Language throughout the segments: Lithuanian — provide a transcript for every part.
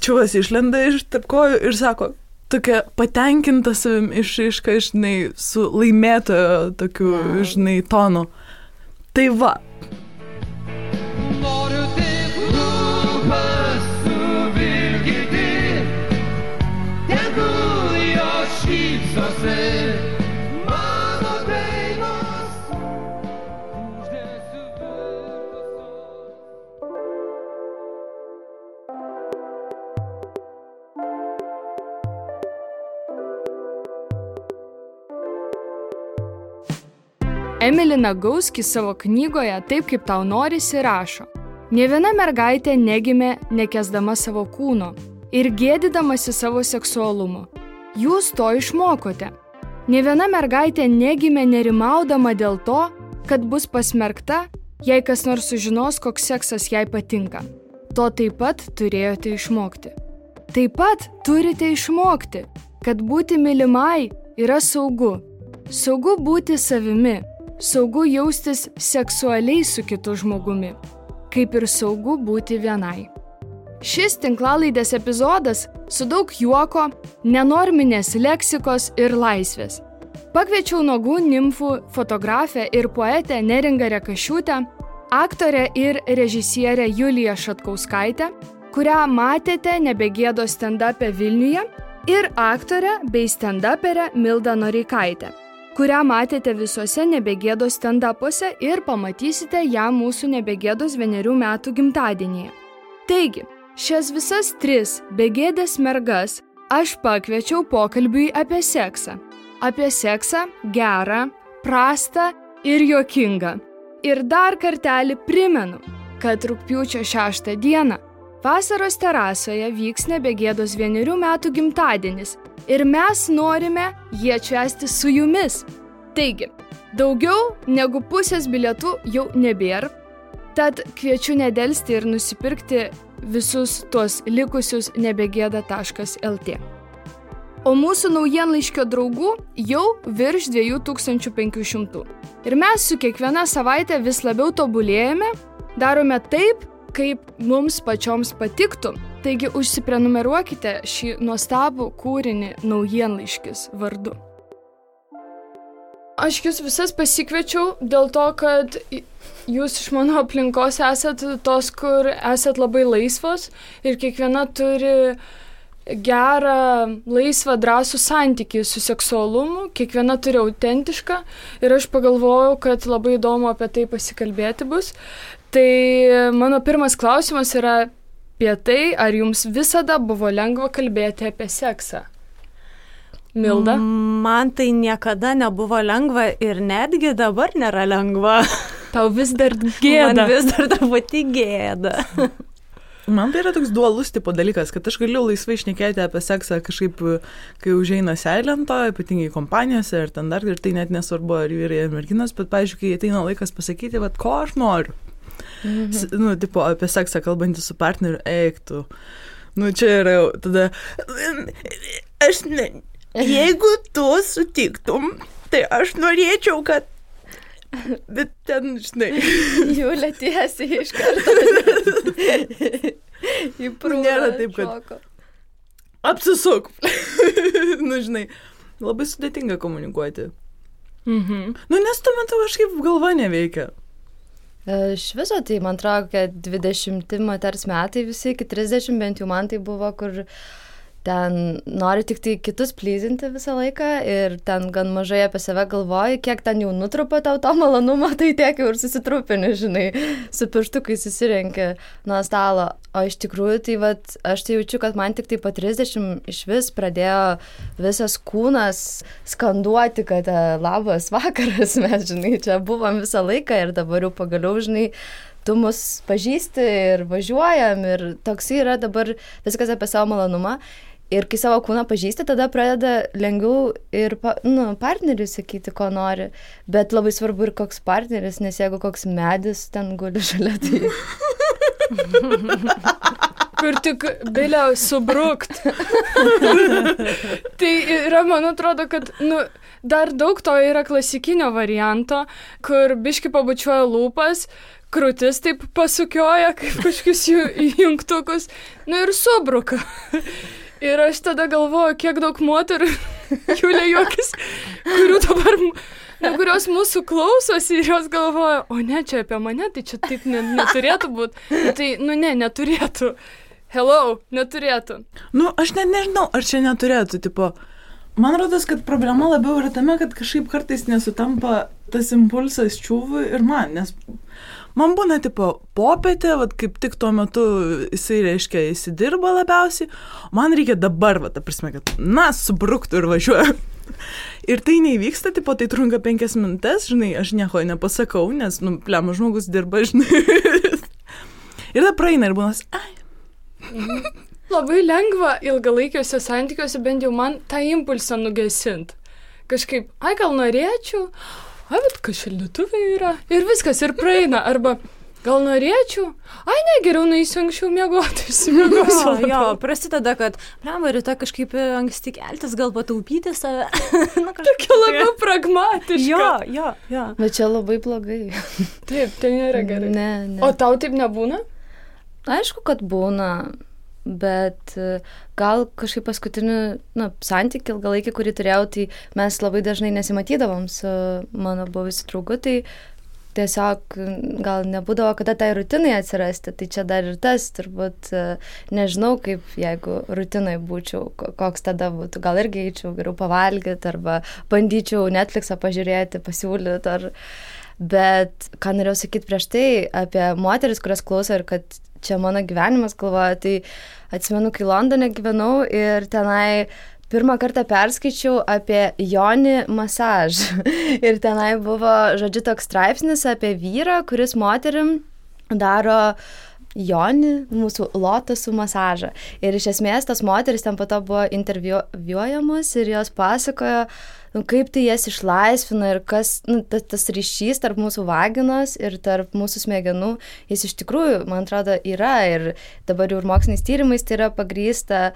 čiuvas išlenda iš tarp kojų ir sako, tokia patenkinta savim išraiška, žinai, su laimėtojo tokiu, žinai, tonu. Tai va. Emily Nagoski savo knygoje Taip, kaip tau norisi rašo. Nė viena mergaitė negimė nekęsdama savo kūno ir gėdydamasi savo seksualumo. Jūs to išmokote. Nė viena mergaitė negimė nerimaudama dėl to, kad bus pasmerkta, jei kas nors sužinos, koks seksas jai patinka. To taip pat turėjote išmokti. Taip pat turite išmokti, kad būti mylimai yra saugu. Saugu būti savimi. Saugu jaustis seksualiai su kitu žmogumi, kaip ir saugu būti vienai. Šis tinklalaidės epizodas su daug juoko, nenorminės leksikos ir laisvės. Pakviečiau nuogų nimfų fotografę ir poetę Neringą Rekašiūtę, aktorę ir režisierę Juliją Šatkauskaitę, kurią matėte Nebegėdos stand-up'e Vilniuje, ir aktorę bei stand-uperę Mildą Noreikaitę, kurią matėte visuose Nebegėdos stand-upuose ir pamatysite ją mūsų Nebegėdos 1 metų gimtadienyje. Taigi, šias visas 3 begėdės mergas aš pakviečiau pokalbiui apie seksą. Apie seksą gerą, prastą ir juokingą. Ir dar kartelį primenu, kad rugpjūčio 6 dieną vasaros terasoje vyks Nebegėdos 1 metų gimtadienis. Ir mes norime jį atšvęsti su jumis. Taigi, daugiau negu pusės bilietų jau nebėra, tad kviečiu nedelsti ir nusipirkti visus tuos likusius nebegėda.lt. O mūsų naujienlaiškio draugų jau virš 2500. Ir mes su kiekviena savaitė vis labiau tobulėjame, darome taip, kaip mums pačioms patiktų. Taigi užsiprenumeruokite šį nuostabų kūrinį naujienlaiškis vardu. Aš jūs visas pasikviečiau dėl to, kad jūs iš mano aplinkos esat tos, kur esat labai laisvos ir kiekviena turi gerą, laisvą, drąsų santykį su seksualumu, kiekviena turi autentišką ir aš pagalvojau, kad labai įdomu apie tai pasikalbėti bus. Tai mano pirmas klausimas yra apie tai, ar jums visada buvo lengva kalbėti apie seksą? Milda? Man tai niekada nebuvo lengva ir netgi dabar nėra lengva. Tau vis dar gėda. Man vis dar truputį gėda. Man tai yra toks dualus tipo dalykas, kad aš galiu laisvai šnekėti apie seksą kažkaip, kai užeina seilento, ypatingai kompanijose ir ten dar, ir tai net nesvarbu, ar vyrai ar merginos, bet, pavyzdžiui, kai ateina laikas pasakyti, vat, ko aš noriu. Nu, tipo, apie seksą kalbantį su partneriu, eiktų. Nu, čia yra jau tada, aš ne, jeigu tu sutiktum, tai aš norėčiau, kad, bet ten, žinai. Jūlė tiesiai iš karto. Nėra taip, kad apsisuk. Nu, žinai, labai sudėtinga komunikuoti. Nu, nes tuo metu kažkaip galva neveikia. Iš viso tai, man atrodo, kad 20 moters metai visi, iki 30 bent jau man tai buvo, kur ten nori tik tai kitus plyzinti visą laiką ir ten gan mažai apie save galvoji, kiek ten jau nutrupo tau to malonumo, tai tiek jau ir susitrupini, žinai, su pirštukai susirenki nuo stalo. O iš tikrųjų, tai vat, aš tai jaučiu, kad man tik tai po 30 iš vis pradėjo visas kūnas skanduoti, kad labas vakaras, mes, žinai, čia buvom visą laiką ir dabar jau pagaliau, žinai, tu mus pažįsti ir važiuojam ir toks yra dabar viskas apie savo malonumą. Ir kai savo kūną pažįsti, tada pradeda lengviau ir partneriui sakyti, ko nori. Bet labai svarbu ir koks partneris, nes jeigu koks medis ten guli šalia, tai... Kur tik bilia subrukt. Tai yra, man atrodo, kad, dar daug to yra klasikinio varianto, kur biški pabučiuoja lūpas, krūtis taip pasukioja, kaip kažkokius jungtukus, nu ir subruka. Ir aš tada galvoju, kiek daug moterų, Julė juokis, kurių dabar, kurios mūsų klausosi ir jos galvoja, o ne, čia apie mane, tai čia taip neturėtų būti. Tai, neturėtų. Hello, neturėtų. Nu, aš net nežinau, ar čia neturėtų, tipo. Man rodos, kad problema labiau yra tame, kad kažkaip kartais nesutampa tas impulsas čiūvui ir man, nes man būna, tipo, popietė, vat, kaip tik tuo metu jisai, reiškia, įsidirba labiausiai, man reikia dabar, ta prasme, kad, subruktų ir važiuoju. Ir tai neįvyksta, tipo, tai trunka 5 minutės, žinai, aš nieko nepasakau, nes, plema žmogus dirba, žinai. Ir tada praeina ir būnas, Labai lengva ilgalaikiuose santykiuose bent jau man tą impulsą nugesint. Kažkaip, gal norėčiau, bet kas šaldytuvai yra. Ir viskas, ir praeina. Arba gal norėčiau, ne, geriau nueisiu anksčiau miegoti, išsimiegosiu. Jo, prasideda, kad, rytoj kažkaip anksti keltis, gal pataupyti save. Tokia labiau pragmatiška. Jo. Bet čia labai blogai. Taip, tai nėra gerai. Ne. O tau taip nebūna? Aišku, kad būna. Bet gal kažkaip paskutinį santykį ilgalaikį, kurį turėjau, tai mes labai dažnai nesimatydavom su mano buvusiu draugu, tai tiesiog gal nebūdavo kada tai rutinai atsirasti, tai čia dar ir tas, turbūt nežinau, kaip jeigu rutinai būčiau, koks tada būtų, gal irgi eičiau geriau pavalgyti arba bandyčiau Netflixą pažiūrėti, pasiūlyti, bet ką norėjau sakyti prieš tai apie moteris, kurias klauso ir kad čia mano gyvenimas galvoja, tai atsimenu, kai Londone gyvenau ir tenai pirmą kartą perskaičiau apie Jonį masažą. Ir tenai buvo, žodžiu, toks straipsnis apie vyrą, kuris moterim daro Jonį, mūsų lotosų masažą. Ir iš esmės tas moteris ten po to buvo interviuojamos ir jos pasakojo, kaip tai jas išlaisvina ir kas, tas ryšys tarp mūsų vaginos ir tarp mūsų smegenų, jis iš tikrųjų, man atrodo, yra ir dabar jau ir moksliniais tyrimais tai yra pagrįsta,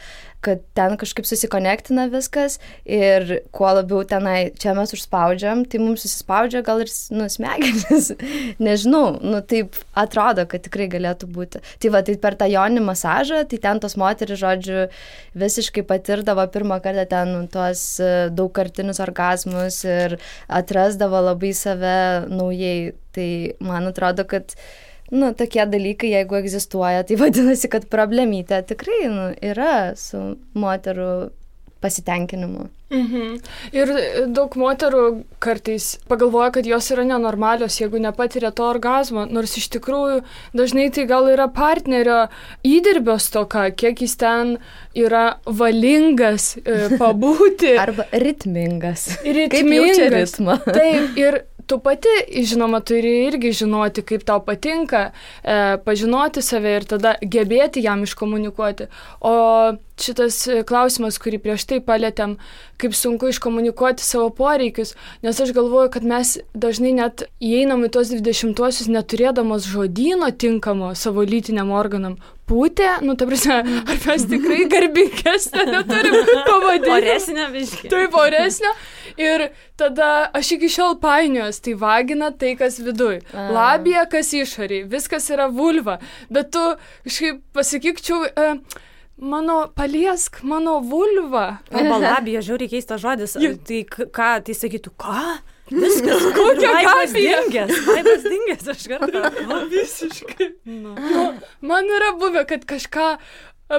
kad ten kažkaip susikonektina viskas ir kuo labiau tenai čia mes užspaudžiam, tai mums susispaudžia gal ir smegenis. Nežinau, taip atrodo, kad tikrai galėtų būti. Tai va, tai per tą Jonį masažą, tai ten tos moterys, žodžiu, visiškai patirdavo pirmą kartą ten tuos daugkartinius orgazmus ir atrasdavo labai save naujai. Tai man atrodo, kad tokie dalykai, jeigu egzistuoja, tai vadinasi, kad problemytė tikrai yra su moterų pasitenkinimu. Ir daug moterų kartais pagalvoja, kad jos yra nenormalios, jeigu nepatiria to orgazmo, nors iš tikrųjų dažnai tai gal yra partnerio įdirbio stoka, kiek jis ten yra valingas pabūti. Arba ritmingas. Kaip jaučia ritmą. Taip, ir tu pati, žinoma, turi irgi žinoti, kaip tau patinka, pažinoti save ir tada gebėti jam iškomunikuoti. O šitas klausimas, kurį prieš tai palėtėm, kaip sunku iškomunikuoti savo poreikius, nes aš galvoju, kad mes dažnai net įeinam į tos 20-uosius neturėdamos žodyno tinkamo savo lytiniam organam. Pūtė, ta prasme, ar mes tikrai garbingesnė neturim pavadinti. Oresnė biškį. Taip, oresnė. Ir tada aš iki šiol painiuos, tai vagina tai, kas viduj. Labija, kas išoriai. Viskas yra vulva. Bet tu kažkaip pasakykčiau, paliesk mano vulvą. Arba labija, žiauriai keistas žodis. Tai ką, tai sakytų, ką? Viskas, kokia gabija. Laibas dingęs, aš kartą. Visiškai. Man yra buvę, kad kažką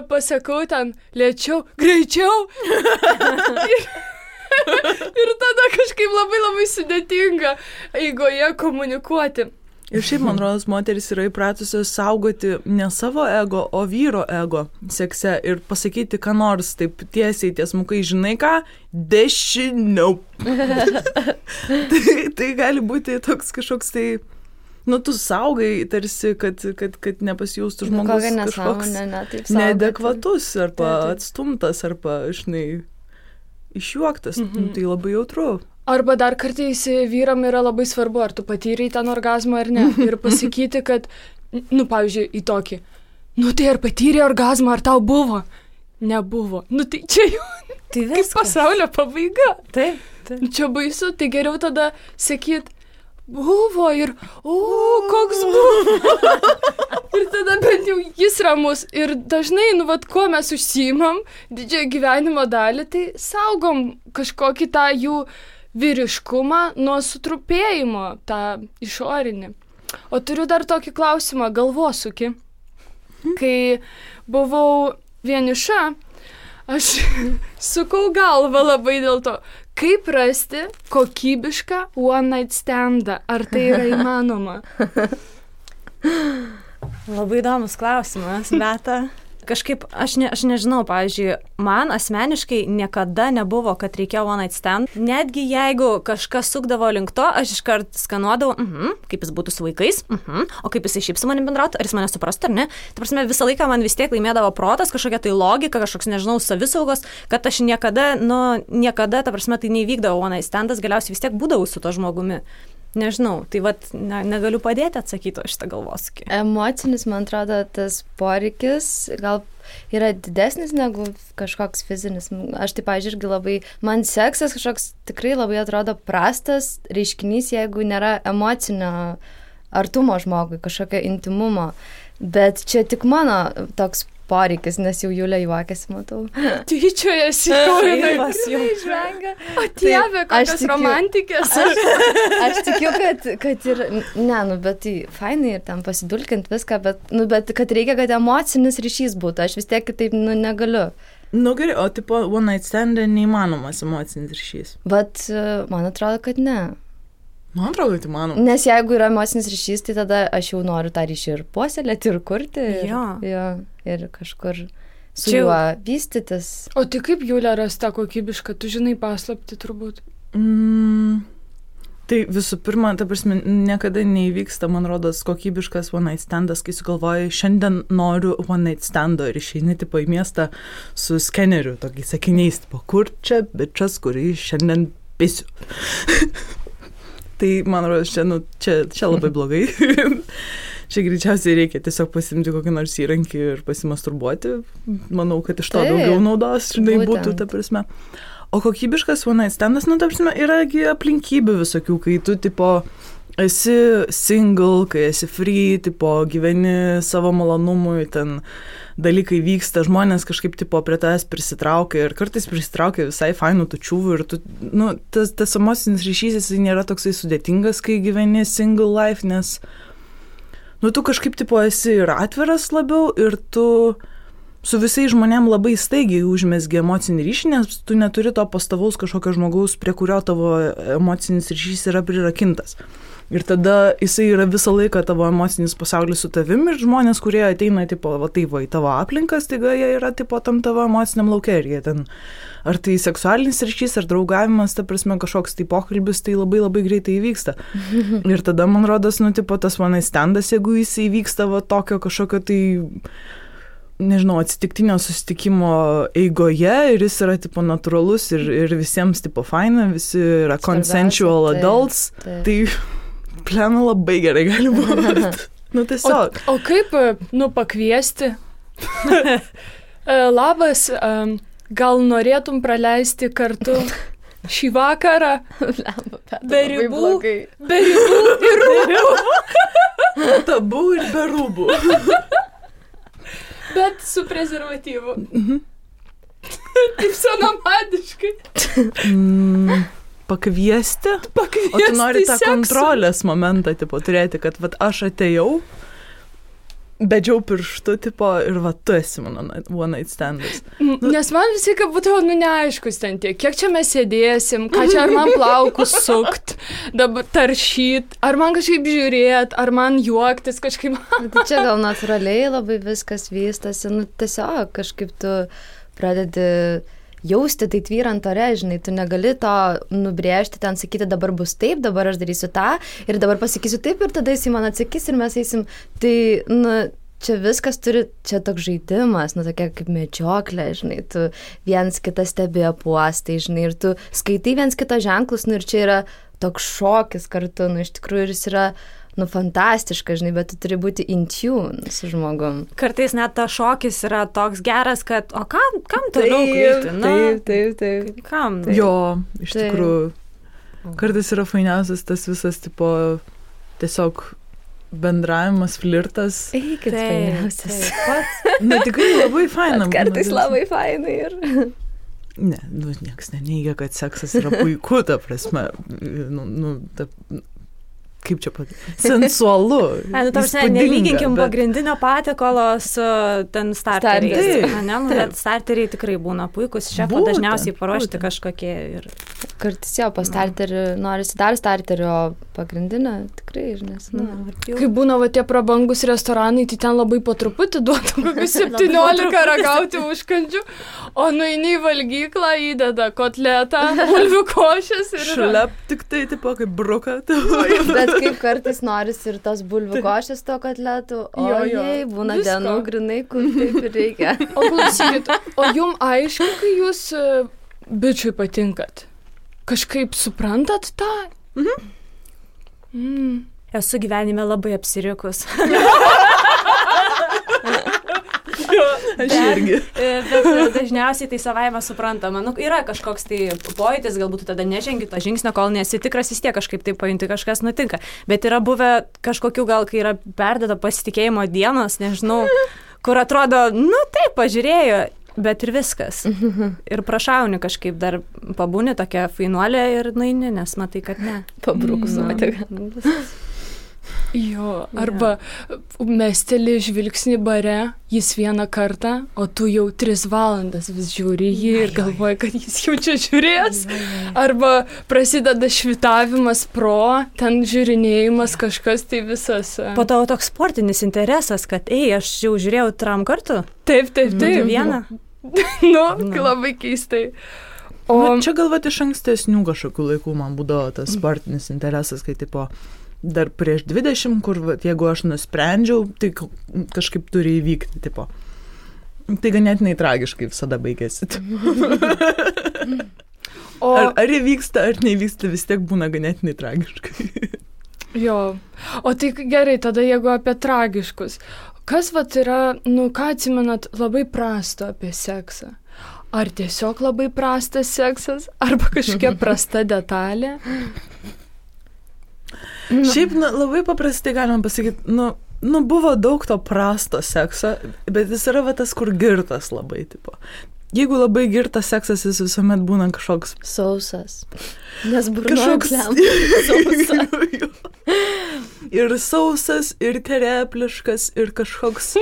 pasakau ten lėčiau, greičiau. Ir tada kažkaip labai labai sudėtinga eigoje komunikuoti. Ir šiaip, man rodos, moteris yra įpratusios saugoti ne savo ego, o vyro ego sekse ir pasakyti, ką nors taip tiesiai, tiesmukai, žinai ką, dešiniau. tai gali būti toks kažkoks tai, tu saugai tarsi, kad nepasijaustų žmogus kažkoks neadekvatus arba atstumtas arba, žinai, išjuoktas. Tai labai jautru. Arba dar kartais vyram yra labai svarbu, ar tu patyrei ten orgazmą ar ne. Ir pasakyti, kad, pavyzdžiui, į tokį, tai ar patyrei orgazmą, ar tau buvo? Nebuvo. Tai čia jau kaip pasaulio pabaiga. Taip. Čia baisu, tai geriau tada sakyt, buvo ir, koks buvo. Ir tada bent jau jis ramus. Ir dažnai, kuo mes užsiimam didžiąją gyvenimo dalį, tai saugom kažkokį tą jų vyriškumą nuo sutrupėjimo, tą išorinį. O turiu dar tokį klausimą, galvosūkį. Kai buvau vieniša, aš sukau galvą labai dėl to, kaip rasti kokybišką one night standą. Ar tai yra įmanoma? Labai įdomus klausimas, Beata. Kažkaip, aš nežinau, pavyzdžiui, man asmeniškai niekada nebuvo, kad reikėjo one night stand. Netgi jeigu kažkas sukdavo link to, aš iškart skanuodavau, kaip jis būtų su vaikais, o kaip jis šiaip su manim bendrautų, ar jis mane suprastų, ar ne. Ta prasme, visą laiką man vis tiek laimėdavo protas, kažkokia tai logika, kažkoks, nežinau, savisaugos, kad aš niekada, ta prasme, tai neįvykdavo one night standas, galiausiai vis tiek būdavau su to žmogumi. Nežinau, tai negaliu padėti atsakyti šitą galvosūkį. Emocinis, man atrodo, tas poreikis gal yra didesnis negu kažkoks fizinis. Aš tai, pavyzdžiui, irgi labai, man seksas kažkoks tikrai labai atrodo prastas reiškinys, jeigu nėra emocinio artumo žmogui, kažkokio intimumo. Bet čia tik mano toks poreikis, nes jau Julė juokiasi, matau. Tyčiojasi, Laivas jau žvengia. O Dieve, kokios romantikės. Aš tikiu, kad ir, bet tai fainai ir ten pasidulkint viską, bet kad reikia, kad emocinis ryšys būtų. Aš vis tiek kitaip, negaliu. Gerai, o tipo one night stand neįmanomas emocinis ryšys? Bet man atrodo, kad ne. Man atrodo, kad įmanoma. Nes jeigu yra emocinis ryšys, tai tada aš jau noriu tą ryšį ir puoselėti, ir kurti. Ir kažkur su juo vystytis. O tai kaip Julė rasta kokybišką? Tu žinai paslapti turbūt. Tai visų pirma, ta prasme, niekada neįvyksta, man rodos, kokybiškas one night standas, kai sugalvoji, šiandien noriu one night stando ir išeini tipo į miestą su skeneriu, tokiais sakiniais, tipo, kur čia bičas, kurį šiandien pisiu. Tai, man rodos, čia labai blogai. Čia greičiausiai reikia tiesiog pasimti kokį nors įrankį ir pasimasturbuoti. Manau, kad iš to daugiau naudos, būtų, ta prasme. O kokybiškas one night standas, ta prasme, yra aplinkybių visokių, kai tu, tipo, esi single, kai esi free, tipo, gyveni savo malonumui, ten dalykai vyksta, žmonės kažkaip, tipo, prie tavęs prisitraukia ir kartais prisitraukia visai fainų tučiuvų ir tu, tas emocinis ryšys, jis nėra toksai sudėtingas, kai gyveni single life, nes tu kažkaip, tipo, esi ir atviras labiau ir tu su visais žmonėm labai staigiai užmezgi emocinį ryšį, nes tu neturi to pastovaus kažkokio žmogaus, prie kurio tavo emocinis ryšys yra prirakintas. Ir tada jisai yra visą laiką tavo emocinis pasaulis su tavim ir žmonės, kurie ateina, tipo, į tavo aplinkas, taigi jie yra, tipo, tam tavo emociniam lauke ir jie ten, ar tai seksualinis ryšys, ar draugavimas, ta prasme, kažkoks tai pokalbis, tai labai labai greitai įvyksta. Ir tada, man rodos, tipo, tas one night standas, jeigu jis įvyksta tokio kažkokio tai, nežinau, atsitiktinio susitikimo eigoje ir jis yra, tipo, natūralus ir visiems, tipo, faina, visi yra consensual adults, tai plena labai gerai gali būti. Tiesiog. O kaip, pakviesti? Labas, gal norėtum praleisti kartu šį vakarą? Be ribų ir rūbų. Tabu ir be rūbų. Bet su prezervatyvu. Taip senamadiškai. Pakviesti? O tu nori tą kontrolės momentą, tipo, turėti, kad aš atėjau, bedžiau pirštu, tipo, ir tu esi mano one night standas. Nes man visi, kad būtų, neaiškus ten tiek, kiek čia mes sėdėsim, ką čia, ar man plaukus sukt, dabar taršyt, ar man kažkaip žiūrėt, ar man juoktis kažkaip. Tai čia gal natūraliai labai viskas vystosi, tiesiog kažkaip tu pradedi jausti tai tvyrant ore, žinai, tu negali to nubrėžti, ten sakyti, dabar bus taip, dabar aš darysiu tą ir dabar pasakysiu taip ir tada jis man atsakys ir mes eisim. Tai, čia viskas turi, čia toks žaidimas, tokia kaip medžioklė, žinai, tu viens kitą stebi apuostai, žinai, ir tu skaitai viens kitą ženklus, ir čia yra toks šokis kartu, iš tikrųjų ir jis yra fantastiška, žinai, bet tu turi būti in tune su žmogum. Kartais net ta šokis yra toks geras, kad, o kam toliau krypti? Taip. Kam? Jo, iš tikrųjų. Kartais yra fainiausias tas visas, tipo, tiesiog bendravimas, flirtas. Eikit, fainiausias. Na, tikrai labai faina. Kartais labai fainai ir... Ne, niekas neneigia, kad seksas yra puiku, ta prasme. Kaip čia sensualu. Nelyginkim pagrindinio patiekalo su ten starteriais. Bet starteriai tikrai būna puikus. Šefo dažniausiai paruošti kažkokie. Kartais jo, po starterį norisi dar starterį, o pagrindinę tikrai, nes. Kai būna va tie prabangus restoranai, tai ten labai po truputį duotų kokius 17 ragauti užkandžių, o nueini į valgyklą, įdeda kotletą, bulvių košės ir... Šlep tik tai, tipo, kaip bruka. Bet kaip kartais norisi ir tos bulvių košės to kotletų, ojei, būna dienų grinai, kur taip ir reikia. O klausykit, o jum aišku, kai jūs bičiui patinkat? Kažkaip suprantat tą? Esu gyvenime labai apsirikus. Aš irgi. Bet dažniausiai tai savaime suprantama. Yra kažkoks tai pojūtis, galbūt tada nežengi to žingsnio, kol nesi tikras, vis tiek kažkaip tai pajunti, kažkas nutinka. Bet yra buvę kažkokių gal, kai yra perdėta pasitikėjimo dienos, nežinau, kur atrodo, taip, pažiūrėjo, bet ir viskas. Ir prašauni kažkaip dar pabūni tokia fainuolė ir nueini, nes matai, kad ne. Pabrukus nuotėga. Jo, arba mesteli žvilgsnį bare, jis vieną kartą, o tu jau 3 valandas vis žiūri jį ir galvoji, kad jis jau čia žiūrės. Arba prasideda švitavimas ten žiūrinėjimas kažkas, tai visas. Po to toks sportinis interesas, kad aš jau žiūrėjau 3 kartų. Taip. Vieną. Labai keistai. Čia galvoti iš ankstesnių kažkokių laikų man būdavo tas sportinis interesas, kai tipo dar prieš 20, kur jeigu aš nusprendžiau, tai kažkaip turi įvykti, tipo. Tai ganėtinai tragiškai visada baigėsi. Ar įvyksta, ar neįvyksta, vis tiek būna ganėtinai tragiškai. Jo. O tai gerai, tada jeigu apie tragiškus. Kas yra, ką atsimenat labai prasto apie seksą? Ar tiesiog labai prastas seksas, arba kažkokia prasta detalė? Šiaip labai paprastai galima pasakyti, buvo daug to prasto sekso, bet jis yra tas, kur girtas labai, tipo. Jeigu labai girtas seksas, jis visuomet būna kažkoks... Sausas. Nes burnoja sausas. Ir sausas, ir terepliškas, ir kažkoks...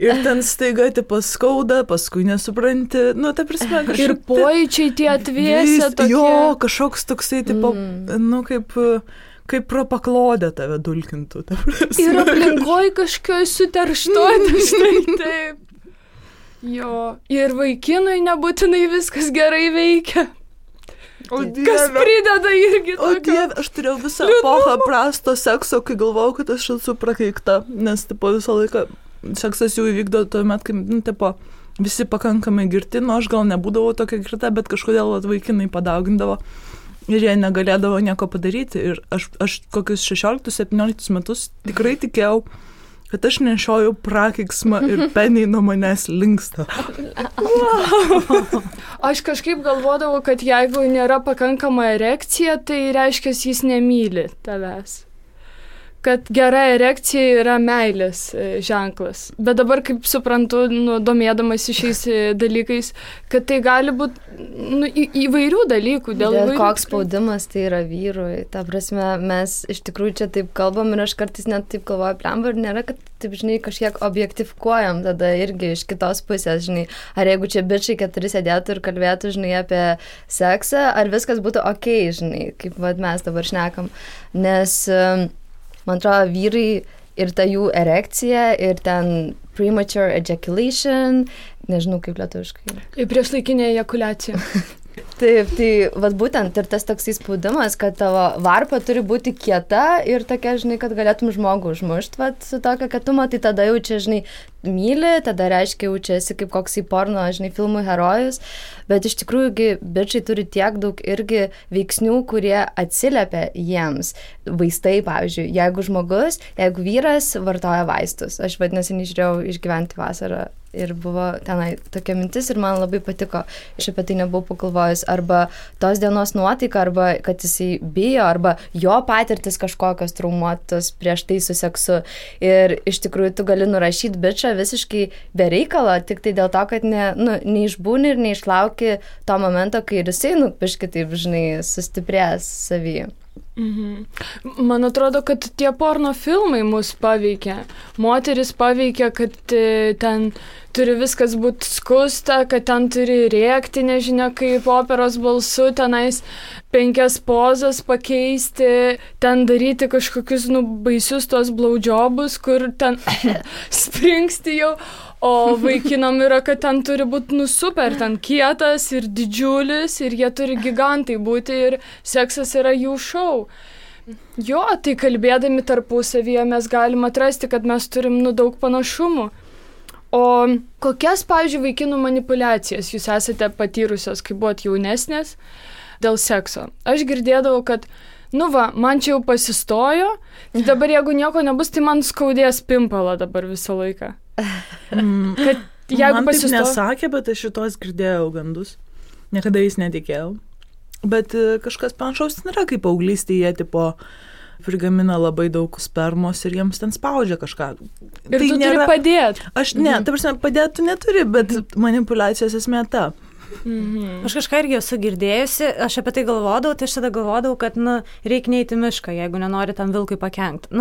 Ir ten staiga, tipo, skauda, paskui nesupranti. Ta prasme, kažkaip... Ir pojūčiai tie atvėsę tokie... Jo, kažkoks toksai, tipo, kaip pro paklodę tave dulkintų. Ir aplinkoj kažkioj suterštoti, štai taip. Jo, ir vaikinui nebūtinai viskas gerai veikia. Kas prideda irgi tokio. O Dieve, aš turėjau visą epochą prasto sekso, kai galvojau, kad aš esu prakeikta, nes tipo visą laiką seksas jau įvykdo tuomet, kai tipo, visi pakankamai girti, aš gal nebūdavau tokia girta, bet kažkodėl vaikinai padaugindavo. Ir jie negalėdavo nieko padaryti. Ir aš kokius 16-17 metus tikrai tikėjau, kad aš nešioju prakeiksmą ir peniai nuo manęs linksta. Aš kažkaip galvodavau, kad jeigu nėra pakankama erekcija, tai reiškia, jis nemyli tavęs. Kad gera erekcija yra meilės ženklas. Bet dabar, kaip suprantu, domėdamas šiais dalykais, kad tai gali būti įvairių dalykų. Dėl koks spaudimas tai yra vyrui. Ta prasme, mes iš tikrųjų čia taip kalbam ir aš kartais net taip galvoju, plemba, ir nėra, kad taip, kažkiek objektifikuojam tada irgi iš kitos pusės, Ar jeigu čia bičiai 4 sėdėtų ir kalbėtų, apie seksą, ar viskas būtų okei, kaip mes dabar šnekam. Nes... Man atrodo, vyrai ir ta jų erekcija, ir ten premature ejaculation, nežinau kaip lietuviškai. Priešlaikinė ejakuliacija. Taip, tai būtent ir tas toksai spaudimas, kad tavo varpa turi būti kieta ir tokia, kad galėtum žmogų užmušti, su tokia kietumo, tai tada jau čia, myli, tada reiškia, jau čia esi kaip koksai porno, filmų herojus, bet iš tikrųjų bičiai turi tiek daug irgi veiksnių, kurie atsiliepia jiems. Vaistai, pavyzdžiui, jeigu vyras vartoja vaistus, aš vadinasi, nežiūrėjau Išgyventi vasarą Ir buvo tenai tokia mintis ir man labai patiko. Aš apie tai nebuvau pagalvojus. Arba tos dienos nuotaika, arba kad jisai bijo, arba jo patirtis kažkokios traumuotos prieš tai su seksu. Ir iš tikrųjų tu gali nurašyti bičą visiškai be reikalo, tik tai dėl to, kad neišbūni ir neišlauki to momento, kai ir jisai, biškai taip, žinai, sustiprės savyje. Man atrodo, kad tie porno filmai mus paveikia. Moteris paveikia, kad ten turi viskas būti skusta, kad ten turi rėkti, nežinia, kaip operos balsu, tenais 5 pozas pakeisti, ten daryti kažkokius baisius tos blowjobus, kur ten springsti jau. O vaikinam yra, kad ten turi būti super, ten kietas ir didžiulis ir jie turi gigantai būti ir seksas yra jų šou. Jo, tai kalbėdami tarpusavyje mes galim atrasti, kad mes turim daug panašumų. O kokias, pavyzdžiui, vaikinų manipulacijas jūs esate patyrusios, kai buvot jaunesnės dėl sekso? Aš girdėdavau, kad man čia jau pasistojo, tai dabar jeigu nieko nebus, tai man skaudės pimpalą dabar visą laiką. Kad jeigu man taip nesakė, bet aš šitos girdėjau gandus. Niekada jais netikėjau. Bet kažkas panašaus nėra, kaip paauglystėje tipo prigamina labai daug spermos ir jiems ten spaudžia kažką. Ir tai tu turi padėti. Aš ne, ta prasme, padėti tu neturi, bet manipulacijos esmė ta. Aš kažką irgi esu girdėjusi, aš apie tai galvodavau, tai aš tada galvodavau, kad reikia neiti mišką, jeigu nenori tam vilkui pakenkti.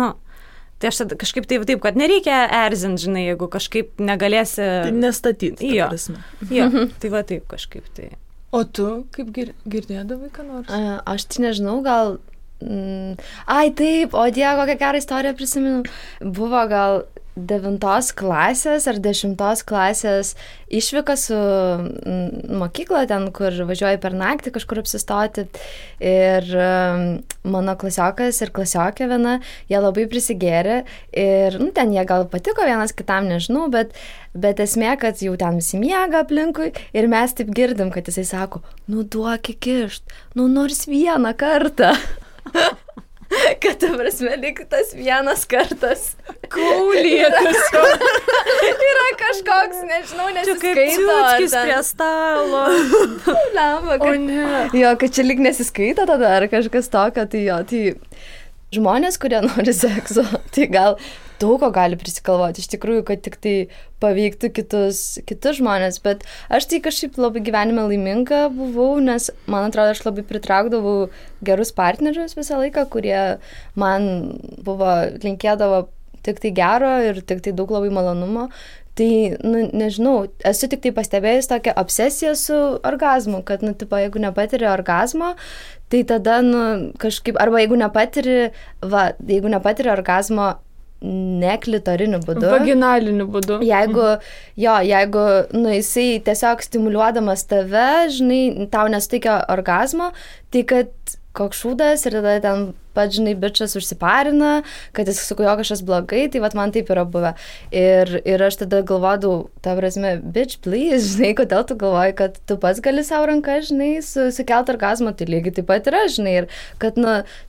Tai aš tada kažkaip taip, kad nereikia erzinti, žinai, jeigu kažkaip negalėsi... Tai nestatyti. Jo, tai va taip kažkaip tai. O tu kaip girdėdavai ką nors? Aš tai nežinau, gal... Ai, taip, o Dieve, kokią gerą istoriją prisimenu. Buvo gal 9 klasės ar 10 klasės išvyka su mokykla ten, kur važiuoju per naktį kažkur apsistoti. Ir mano klasiokas ir klasiokė viena, jie labai prisigėrė. Ir ten jie gal patiko vienas kitam, nežinau, bet esmė, kad jau ten visi miega aplinkui. Ir mes taip girdim, kad jisai sako, duok įkišt, nors vieną kartą. Kad ta prasme, lyg tas vienas kartas kaulėtas yra kažkoks, nežinau, nesiskaito. Čia kaip ciuckis prie stalo. O ne. Jo, kad čia lyg nesiskaito tada ar kažkas tokio, tai jo, tai žmonės, kurie nori sekso, tai gal daug ko gali prisikalvoti, iš tikrųjų, kad tik tai paveiktų kitus žmonės, bet aš tai kažkaip labai gyvenime laiminga buvau, nes man atrodo, aš labai pritraukdavau gerus partnerius visą laiką, kurie man linkėdavo tik tai gero ir tik tai daug labai malonumo. Tai, nežinau, esu tik tai pastebėjus tokią obsesiją su orgazmu, kad, jeigu nepatiri orgazmo, tai tada, kažkaip, arba jeigu nepatiri orgazmo neklitorinį būdu. Vaginaliniu būdu. Jeigu jisai tiesiog stimuliuodamas tave, žinai, tau nesuteikia orgazmo, tai kad koks šūdas ir tada ten pats, žinai, bičas užsiparina, kad jis su kuo kažkas blogai, tai man taip yra buvę. Ir aš tada galvodavau, ta prasme, bitch, please, žinai, kodėl tu galvoji, kad tu pats gali savo ranką, žinai, sukelti orgazmą, tai lygiai taip pat yra, žinai, ir kad,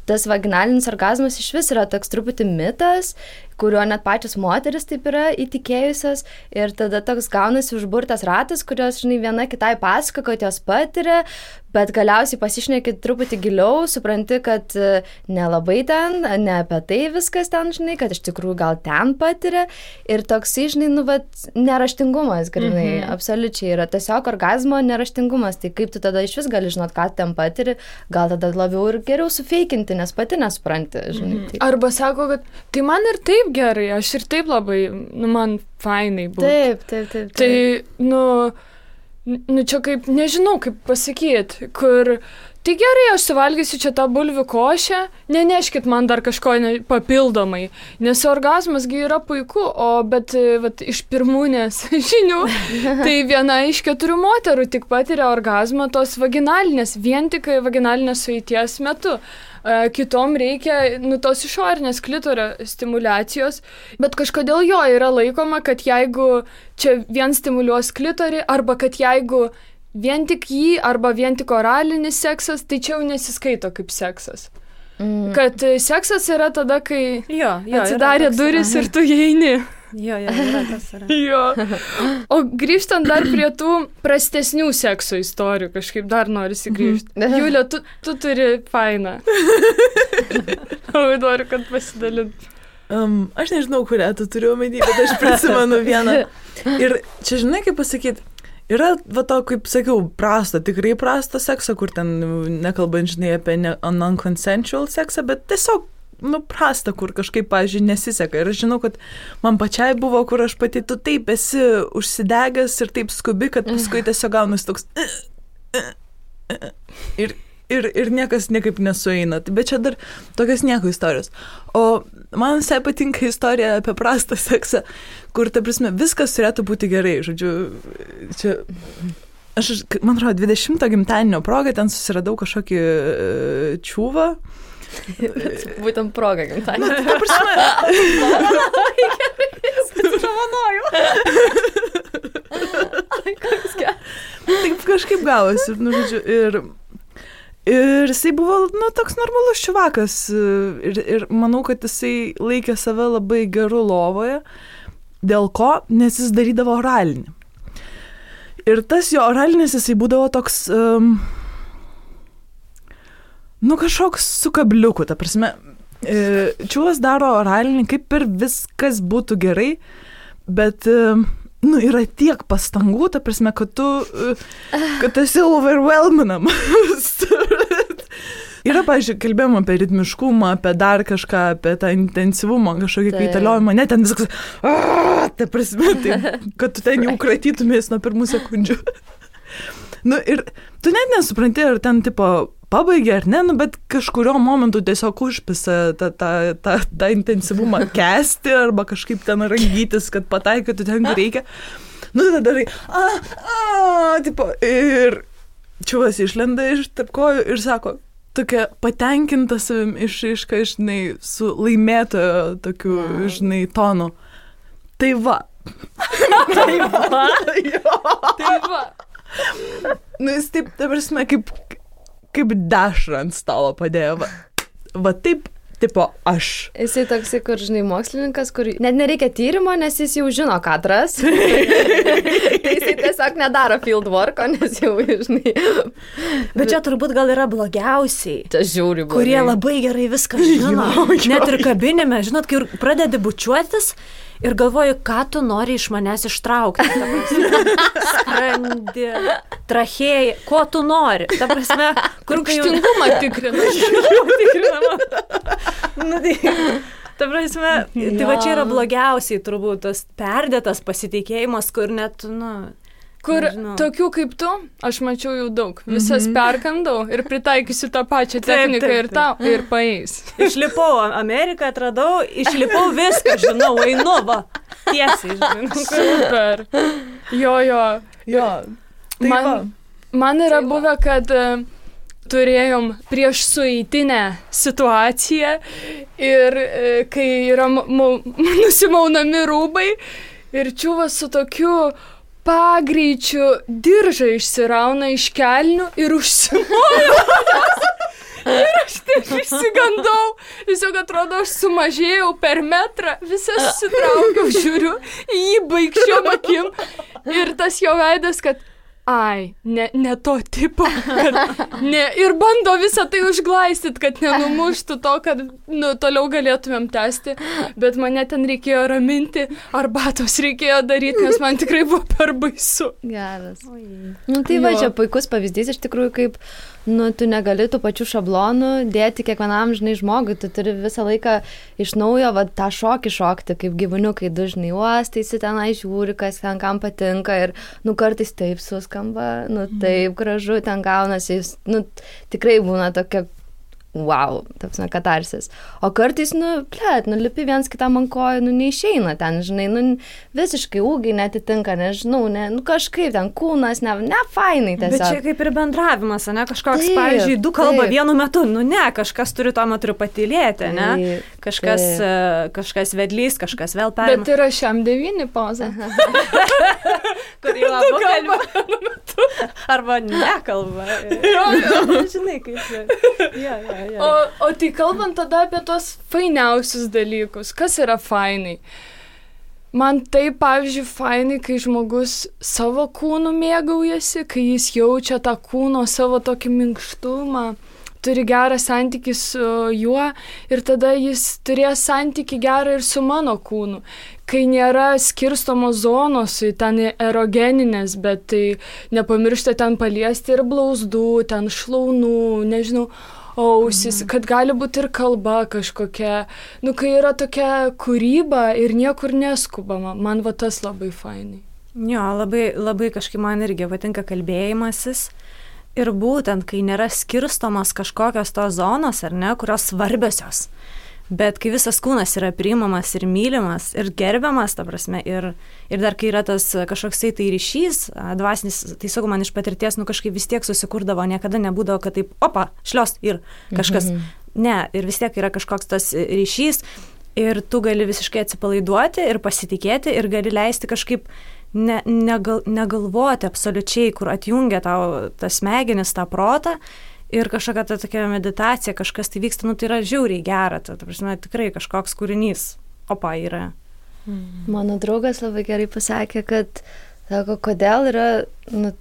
tas vaginalinis orgazmas iš vis yra toks truputį mitas, kurio net pačios moteris taip yra įtikėjusios ir tada toks gaunasi užburtas ratas, kurios, žinai, viena kitai pasako, kad jos patiria, bet galiausiai pasišneki truputį giliau, supranti, kad nelabai ten, ne apie tai viskas ten, žinai, kad iš tikrųjų gal ten patiria ir toksai, žinai, neraštingumas, grinai, absoliučiai yra tiesiog orgazmo neraštingumas, tai kaip tu tada iš vis gali žinot, ką ten patiri, gal tada labiau ir geriau sufeikinti, nes pati nesupranti, žinai. Taip. Arba sako, kad tai man ir taip gerai, aš ir taip labai, man fainai buvo. Taip. Tai, čia kaip, nežinau, kaip pasakyti, kur, tai gerai, aš suvalgysiu čia tą bulvių košę, neneškit man dar kažko papildomai, nes orgazmasgi yra puiku, bet iš pirmūnės žinių, tai viena iš 4 moterų tik patiria orgazmą tos vaginalinės, vien tik vaginalinės sueities metu. Kitom reikia tos išorinės klitorio stimulacijos, bet kažkodėl jo yra laikoma, kad jeigu čia vien stimuliuos klitorį, arba kad jeigu vien tik jį, arba vien tik oralinis seksas, tai čia jau nesiskaito kaip seksas. Kad seksas yra tada, kai atsidarė duris ir tu įeini. Jo, yra tas yra. Jo. O grįžtant dar prie tų prastesnių sekso istorijų, kažkaip dar norisi grįžti. Julija, tu turi fainą. Labai noriu, kad pasidalint. Aš nežinau, kurią tu turiu omeny, bet aš prisimenu vieną. Ir čia, žinai, kaip pasakyti, yra, va to, kaip sakiau, tikrai prasto sekso, kur ten nekalbant, žinai, apie non-consensual seksą, bet tiesiog, prasta, kur kažkaip, pavyzdžiui, nesiseka. Ir aš žinau, kad man pačiai buvo, kur aš pati, tu taip esi užsidegęs ir taip skubi, kad paskui tiesiog gaunasi toks ir niekas niekaip nesueina. Bet čia dar tokios nieko istorijos. O man visai patinka istorija apie prastą seksą, kur, ta prasme, viskas turėtų būti gerai. Žodžiu, čia aš, man atrodo, 20 gimtadienio proga ten susiradau kažkokį čiūvą. Būtent proga gimtadienio. Ta prasme. Taip kažkaip gavosi. Žodžiu, ir jisai buvo, toks normalus čiuvakas ir manau, kad jisai laikė save labai geru lovoje. Dėl ko? Nes jis darydavo oralinį. Ir tas jo oralinis jisai būdavo toks, kažkoks su kabliuku, ta prasme. Čiuvas daro oralinį, kaip ir viskas būtų gerai, bet yra tiek pastangų, ta prasme, kad tu esi overwhelminamas. Yra, pavyzdžiui, kalbėjom apie ritmiškumą, apie dar kažką, apie tą intensyvumą, kažkokį kaitaliojimą, ne ten viskas, ta prasme, kad tu ten jau kratytumės nuo pirmų sekundžių. Ir tu net nesupranti, ar ten, pabaigė ar ne, bet kažkurio momentu tiesiog užpisa tą intensyvumą kesti arba kažkaip ten rangytis, kad pataikytų ten, kur reikia. Tada darai, ir čiuvas išlenda iš tarp kojų ir sako, tokia patenkinta savim išraiška, žinai, su laimėtojo tokiu, žinai, tonu. Tai va. Tai va. Jis taip, ta prasme, kaip dešrą ant stalo padėjo. Va taip, aš. Jisai toksai, kur, žinai, mokslininkas, kur net nereikia tyrimo, nes jis jau žino, ką atras. Jisai tiesiog nedaro field worko, nes jau, žinai. Bet čia turbūt gal yra blogiausiai. Čia žiūri blogai. Kurie labai gerai viską žino. Net ir kabinime, žinot, kai pradedi bučiuotis ir galvoju, ką tu nori iš manęs ištraukti. Skrandį, trachėją, ko tu nori. Ta prasme, kur rūgštingumą tikrinama. Ta prasme, tai va čia yra blogiausiai turbūt tas perdėtas pasitikėjimas, kur net, Kur nežinau. Tokių kaip tu, aš mačiau jau daug. Visas perkandau ir pritaikysiu tą pačią techniką ir tau, ir paeis. Išlipau Ameriką, atradau, išlipau viską, žinau, einu, va, tiesiai, žinau. Super. Jo. Man yra buvę, kad turėjom prieš sueitinę situaciją ir kai yra nusimaunami rūbai ir čiuvas su tokiu pagreičiu diržą išsirauna iš kelnių ir užsimoja. Ir aš taip išsigandau. Tiesiog atrodo, aš sumažėjau per metrą, visą susitraukiau, žiūriu į jį baigščiom akim. Ir tas jo veidas, kad ne to tipo, kad ir bando visą tai užglaistyti, kad nenumuštų to, kad toliau galėtumėm tęsti, bet mane ten reikėjo raminti, arbatos reikėjo daryti, nes man tikrai buvo per baisu. Geras. Tai va, čia puikus pavyzdys iš tikrųjų, kaip tu negali tų pačių šablonų dėti kiekvienam, žinai, žmogui, tu turi visą laiką iš naujo tą šokį šokti, kaip gyvūniukai dažnai uostaisi tenai, žiūri, kas ten kam patinka ir, kartais taip suskamba, taip gražu, ten gaunasi, tikrai būna tokia, wow, tapsime katarsis. O kartais, lipi viens kitam ant kojų, neišeina ten, žinai, visiškai ūgiai netitinka, nežinau, kažkaip ten kūnas, ne fainai tiesiog. Bet čia kaip ir bendravimas, ne, kažkoks, pavyzdžiui, du kalba vienu metu, ne, kažkas turi tuo metu patylėti, ne, kažkas vedlys, kažkas vėl perima. Bet yra šiam 9 poza. Kur jau abu kalba vienu metu. Arba nekalba. Žinai, kaip O tai kalbant tada apie tos fainiausius dalykus, kas yra fainai? Man tai, pavyzdžiui, fainai, kai žmogus savo kūnu mėgaujasi, kai jis jaučia tą kūno savo tokį minkštumą, turi gerą santykį su juo ir tada jis turės santykį gerą ir su mano kūnu. Kai nėra skirstomos zonos, ten erogeninės, bet tai nepamiršta ten paliesti ir blauzdų, ten šlaunų, nežinau, ausis, kad gali būti ir kalba kažkokia. Kai yra tokia kūryba ir niekur neskubama, man va tas labai fainai. Jo, labai, labai kažkaip man irgi patinka kalbėjimasis. Ir būtent, kai nėra skirstomos kažkokios tos zonos, ar ne, kurios svarbiosios. Bet kai visas kūnas yra priimamas ir mylimas ir gerbiamas, ta prasme, ir dar kai yra tas kažkoksai tai ryšys, dvasinis, tai sakau, man iš patirties, kažkaip vis tiek susikurdavo, niekada nebūdavo, kad taip, opa, šlios ir kažkas. Ne, ir vis tiek yra kažkoks tas ryšys ir tu gali visiškai atsipalaiduoti ir pasitikėti ir gali leisti kažkaip negalvoti absoliučiai, kur atjungia tau tas smegenis, tą protą. Ir kažkokia ta tokia meditacija, kažkas tai vyksta, tai yra žiauriai gera, ta prasme, tikrai kažkoks kūrinys, opa, yra. Mano draugas labai gerai pasakė, kad, sako, kodėl yra,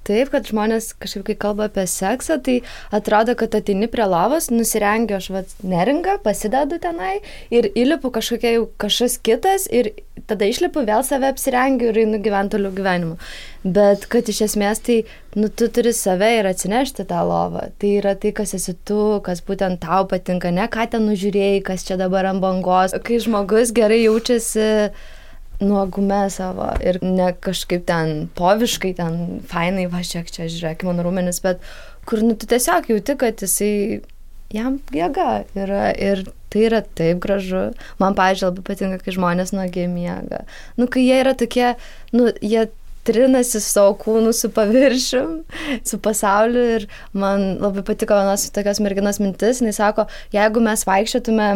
taip, kad žmonės kažkaip, kai kalba apie seksą, tai atrodo, kad ateini prie lovos, nusirengiu aš neringą, pasidedu tenai ir įlipu kažkas kitas ir tada išlipu, vėl save apsirengiu ir einu gyventi toliau gyvenimu. Bet kad iš esmės tai, tu turi save ir atsinešti tą lovą. Tai yra tai, kas esi tu, kas būtent tau patinka, ne ką ten nužiūrėjai, kas čia dabar ant bangos. Kai žmogus gerai jaučiasi nuogume savo ir ne kažkaip ten poviškai, ten fainai, va, čia žiūrėk, mano rūmenis, bet kur, tu tiesiog jauti, kad jisai, jam jėga yra ir tai yra taip gražu. Man, pavyzdžiui, labai patinka, kai žmonės nuogiai miega. Kai jie yra tokie, jie trinasi savo kūnų su paviršium, su pasauliu ir man labai patiko vienos tokios merginos mintis, jinai sako, jeigu mes vaikščiotume,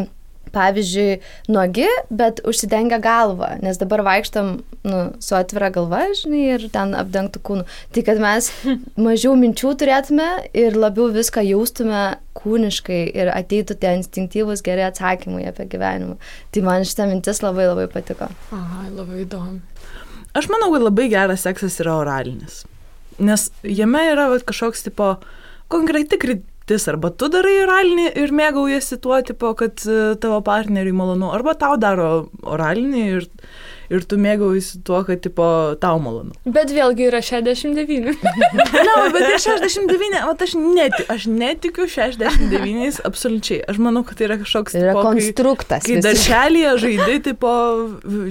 pavyzdžiui, nuogi, bet užsidengia galvą, nes dabar vaikštam su atvira galva, žinai, ir ten apdengtų kūnų. Tai kad mes mažiau minčių turėtume ir labiau viską jaustume kūniškai ir ateitų tie instinktyvūs geri atsakymai apie gyvenimą. Tai man šitą mintis labai labai patiko. Aha, labai įdomu. Aš manau, kad labai geras seksas yra oralinis, nes jame yra kažkoks tipo konkreti kryptis, arba tu darai oralinį ir mėgaujasi tuo, tipo, kad tavo partneriui malonu, arba tau daro oralinį ir tu mėgaujasi tuo, kad tipo, tau malonu. Bet vėlgi yra 69. Bet ir 69, aš netikiu 69 absoliučiai. Aš manau, kad tai yra kažkoks yra tipo, konstruktas. Kai darželyje žaidai tipo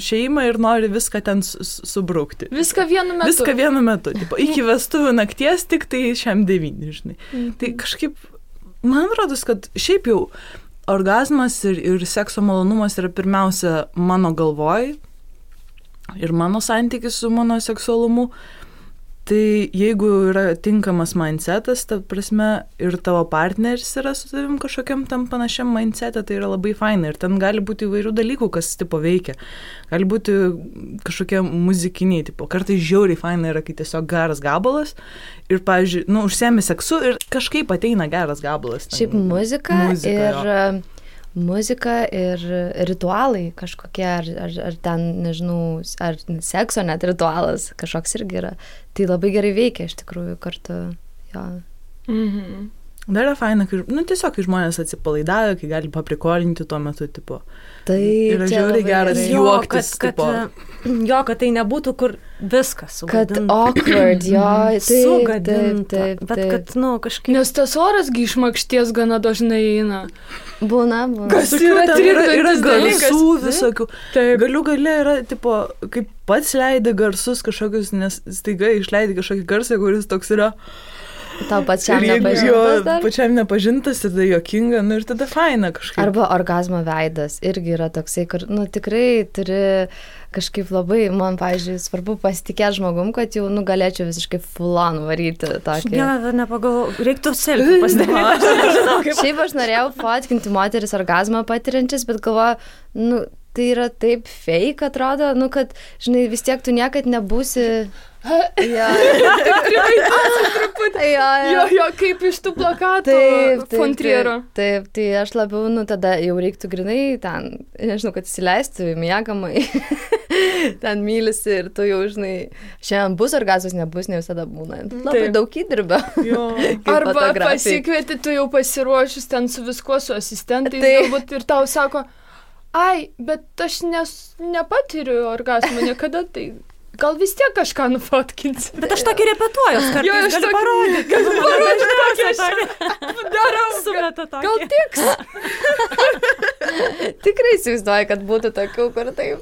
šeimą ir nori viską ten subrukti. Viską vienu metu. Tipo, iki vestuvių nakties tik tai šiam 9, žinai. Tai kažkaip, man rodos, kad šiaip jau orgazmas ir sekso malonumas yra pirmiausia mano galvoj ir mano santykis su mano seksualumu. Tai jeigu yra tinkamas mindsetas, ta prasme, ir tavo partneris yra su tavim kažkokiam tam panašiam mindsetą, tai yra labai faina. Ir ten gali būti įvairių dalykų, kas tipo veikia. Gali būti kažkokie muzikiniai, tipo, kartais žiauriai faina yra, kai tiesiog geras gabalas ir, pavyzdžiui, užsiemi seksu ir kažkaip ateina geras gabalas. Šiaip muzika ir ritualai kažkokie, ar ten, nežinau, ar sekso net ritualas kažkoks irgi yra. Tai labai gerai veikia iš tikrųjų kartu. Jo. Mhm. Dar yra faina, kai, tiesiog, kai žmonės atsipalaidavę, kai gali paprikolinti tuo metu, tipo. Tai yra žiauriai geras juoktis, tipo. Kad tai nebūtų, kur viskas sugadinta. Kad awkward, sugadinta. Bet kad, kažkaip. Nes tas oras išmakšties gana dažnai eina. Būna. Kas yra garsų visokių. Galiu yra, tipo, kaip pats leidai garsus kažkokius, nes staiga išleidai kažkokį garsą, kuris toks yra. Tau pačiam nepažintas dar? Pačiam nepažintas, tada jokinga, ir tada faina kažkaip. Arba orgazmo veidas irgi yra toksai, kur, tikrai turi kažkaip labai, man, pavyzdžiui, svarbu pasitikėti žmogum, kad jau, galėčiau visiškai full-on varyti tokį. Nepagalvoju, reiktų selfie pasidaryti. Šiaip aš norėjau fotkinti moteris orgazmą patiriančias, bet galvoju, tai yra taip fake, atrodo, kad, žinai, vis tiek tu niekad nebūsi. Jo, kaip iš tų plakatų Fontriero. Taip, tai aš labiau, tada jau reiktų grinai ten, nežinau, kad įsileistų į miegamąjį. ten mylisi ir tu jau, žinai, šiandien bus orgazmas, nebus, ne visada būna. Labai daug įdirbio. Arba pasikvieti, tu jau pasiruošus ten su viskuo, su asistentais, galbūt ir tau sako, ai, bet aš nepatiriu orgazmą niekada, tai gal vis tiek kažką nufotkinsi. Bet aš tokį repetuoju, kartais galiu parodyti. Galiu parodyti, darau. Gal tiks? Tikrai įsivaizduoju, kad būtų tokių, kur taip.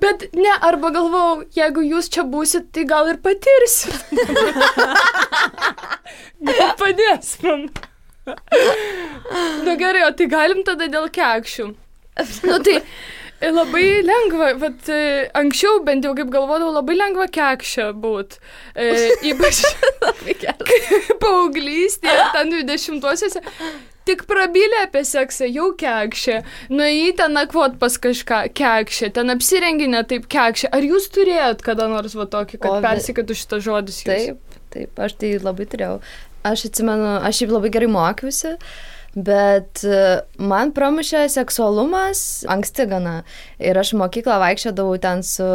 Bet ne, arba galvau, jeigu jūs čia būsit, tai gal ir patirsit. Gal padės man. Nu gerai, o tai galim tada dėl kekšių. Nu tai labai lengva, bet anksčiau bent jau kaip galvodavau, labai lengva kekšė būt. Ypač paauglystėje, ten 20-uosiuose. Tik prabylė apie seksą, jau kekšė. Nuėjai ten nakvot pas kažką, kekšė. Ten apsirenginė taip kekšė. Ar jūs turėjot kada nors va tokį, kad persikėtų šitas žodis jūs? Taip, aš tai labai turėjau. Aš atsimenu, aš šiaip labai gerai mokiausi. Bet man pramušė seksualumas anksti gana. Ir aš mokyklą vaikščiodavau ten su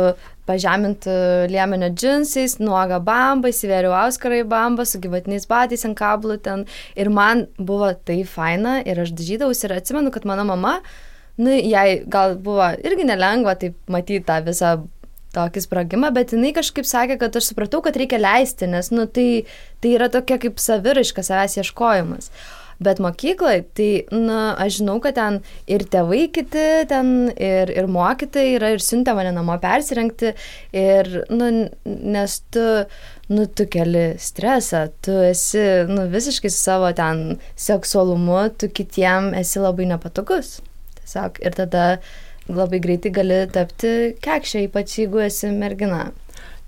pažemintų liemenio džinsais, nuoga bamba, įsivėriau auskarą į bambą, su gyvatiniais batais ant kablų ten. Ir man buvo tai faina ir aš dažydavausi ir atsimenu, kad mano mama, jai gal buvo irgi nelengva taip matyti tą visą tokį sprogimą, bet jinai kažkaip sakė, kad aš supratau, kad reikia leisti, nes tai yra tokia kaip saviraiška, savęs ieškojimas. Bet mokykloje, tai, aš žinau, kad ten ir tėvai kiti, ten ir mokytojai yra ir siuntė mane namo persirengti ir, nes tu keli stresą, tu esi, visiškai su savo ten seksualumu, tu kitiem esi labai nepatogus. Tiesiog, ir tada labai greitai gali tapti kekšė, ypač jeigu esi mergina.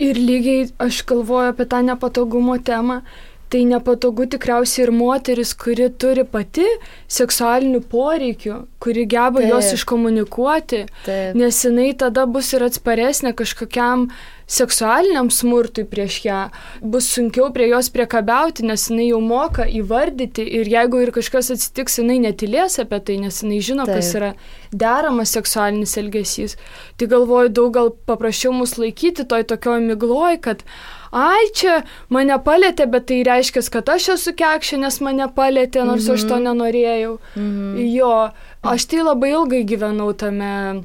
Ir lygiai aš galvoju apie tą nepatogumo temą. Tai nepatogu tikriausiai ir moteris, kuri turi pati seksualinių poreikių, kuri geba juos iškomunikuoti, nes jinai tada bus ir atsparesnė kažkokiam seksualiniam smurtui prieš ją, bus sunkiau prie jos priekabiauti, nes jinai jau moka įvardyti ir jeigu ir kažkas atsitiks, jinai netylės apie tai, nes jinai žino, kas yra deramas seksualinis elgesys. Tai galvoju, daug gal paprašiau mus laikyti toj tokioj migloj, kad ai, čia mane palėtė, bet tai reiškia, kad aš esu kekšė, nes mane palėtė, nors aš to nenorėjau. Jo, aš tai labai ilgai gyvenau tame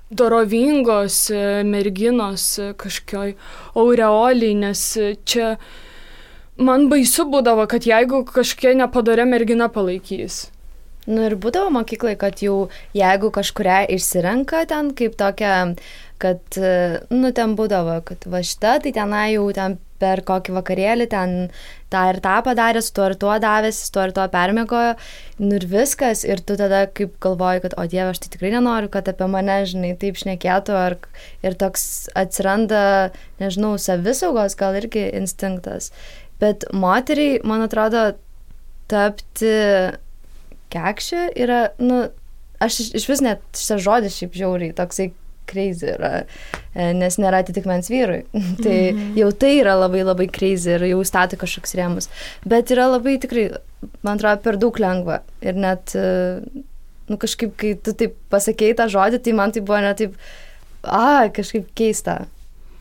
dorovingos merginos kažkokioj aureoliai, nes čia man baisu būdavo, kad jeigu kažkokia nepadorė mergina palaikys. Ir būdavo mokyklai, kad jau jeigu kažkuria išsirenka ten kaip tokia, kad, ten būdavo, kad va šita, tai tenai jau ten per kokį vakarėlį ten tą ir tą padarė, su tuo ir tuo davėsi, su tuo ir tuo permiegojo, ir viskas, ir tu tada kaip galvoji, kad, o Dieve, aš tai tikrai nenoriu, kad apie mane, žinai, taip šnekėtų, ir toks atsiranda, nežinau, savisaugos gal irgi instinktas. Bet moteriai, man atrodo, tapti kekšė yra, aš iš vis net šitas žodis šiaip žiauriai, toksai crazy yra, nes nėra atitikmens vyrui. Tai jau tai yra labai labai crazy ir jau stato kažkoks rėmus. Bet yra labai tikrai, man atrodo, per daug lengva. Ir net, kažkaip, kai tu taip pasakei tą žodį, tai man tai buvo net taip, kažkaip keista.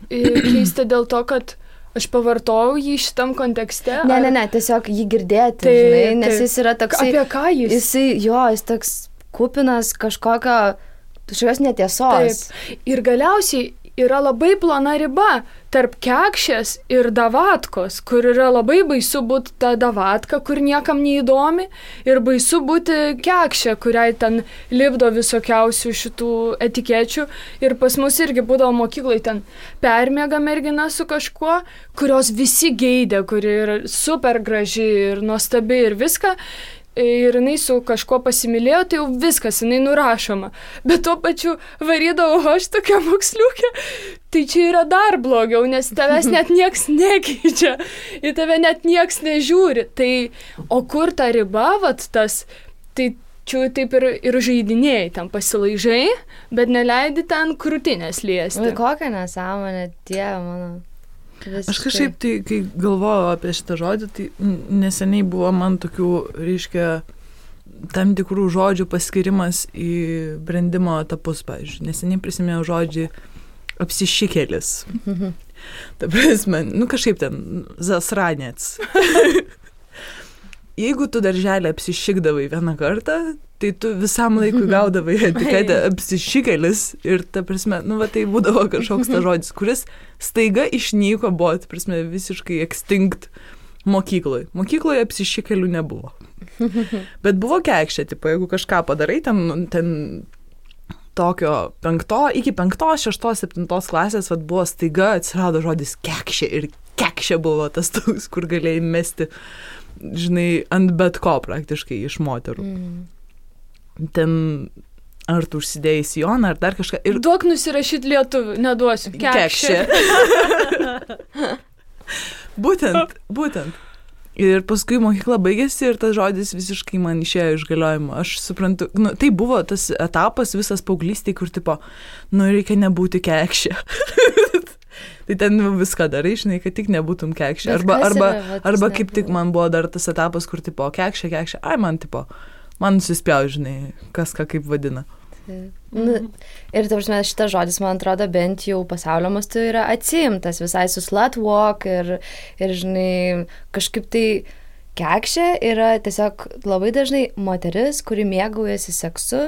Keista dėl to, kad aš pavartojau jį šitam kontekste? Ne, tiesiog jį girdėti, žinai, nes jis yra toksai... Apie ką jis? Jis toks kupinas kažkokios netiesos. Taip. Ir galiausiai yra labai plona riba tarp kekšės ir davatkos, kur yra labai baisu būti ta davatka, kur niekam neįdomi, ir baisu būti kekšė, kuriai ten lipdo visokiausių šitų etikečių. Ir pas mus irgi būdavo mokyklai ten permiega mergina su kažkuo, kurios visi geidė, kuri yra super graži ir nuostabi ir viską. Ir jinai su kažkuo pasimylėjo, tai jau viskas, jinai nurašoma. Bet tuo pačiu varydavau aš tokia moksliukė, tai čia yra dar blogiau, nes tavęs net nieks nekeičia, į tave net nieks nežiūri. Tai, o kur ta riba, tas, tai čia taip ir žaidinėjai, ten pasilaižai, bet neleidi ten krūtinės liesti. Kokia nesąmonė, Dieve mano. Visiškai. Aš kažkaip, tai, kai galvojau apie šitą žodį, tai neseniai buvo man tokių, reiškia, tam tikrų žodžių paskirimas į brendimo etapus, pavyzdžiui. Neseniai prisimėjau žodžiai apsišikėlis. Ta prasme, kažkaip ten zasranėts. Jeigu tu darželį apsišikdavai vieną kartą, tai tu visam laikui gaudavai etiketę apsišikėlis ir ta prasme, tai būdavo kažkoks ta žodis, kuris staiga išnyko, buvo, ta prasme, visiškai extinct mokykloje. Mokykloje apsišikėlių nebuvo. Bet buvo kekšė, tipo, jeigu kažką padarai, ten tokio iki 5, 6, 7 klasės buvo staiga atsirado žodis kekšė ir kekšė buvo tas toks, kur galėjai mesti, žinai, ant bet ko praktiškai iš moterų. Ten ar tu užsidėjai sijoną, ar dar kažką. Ir duok nusirašyti lietuvių, neduosiu. Kekšė. Būtent. Ir paskui mokykla baigėsi ir tas žodis visiškai man išėjo iš galiojimo. Aš suprantu, tai buvo tas etapas visas paauglystėj, kur tipo, reikia nebūti kekšė. Tai ten viską darai, žinai, kad tik nebūtum kekšė. Arba kaip tik man buvo dar tas etapas, kur tipo, kekšė, man nusispjau, žinai, kas ką kaip vadina. Ir ta prasme, šitas žodis, man atrodo, bent jau pasaulio mastu yra atsiimtas visai su slut walk ir žinai, kažkaip tai kekšė yra tiesiog labai dažnai moteris, kuri mėgaujasi seksu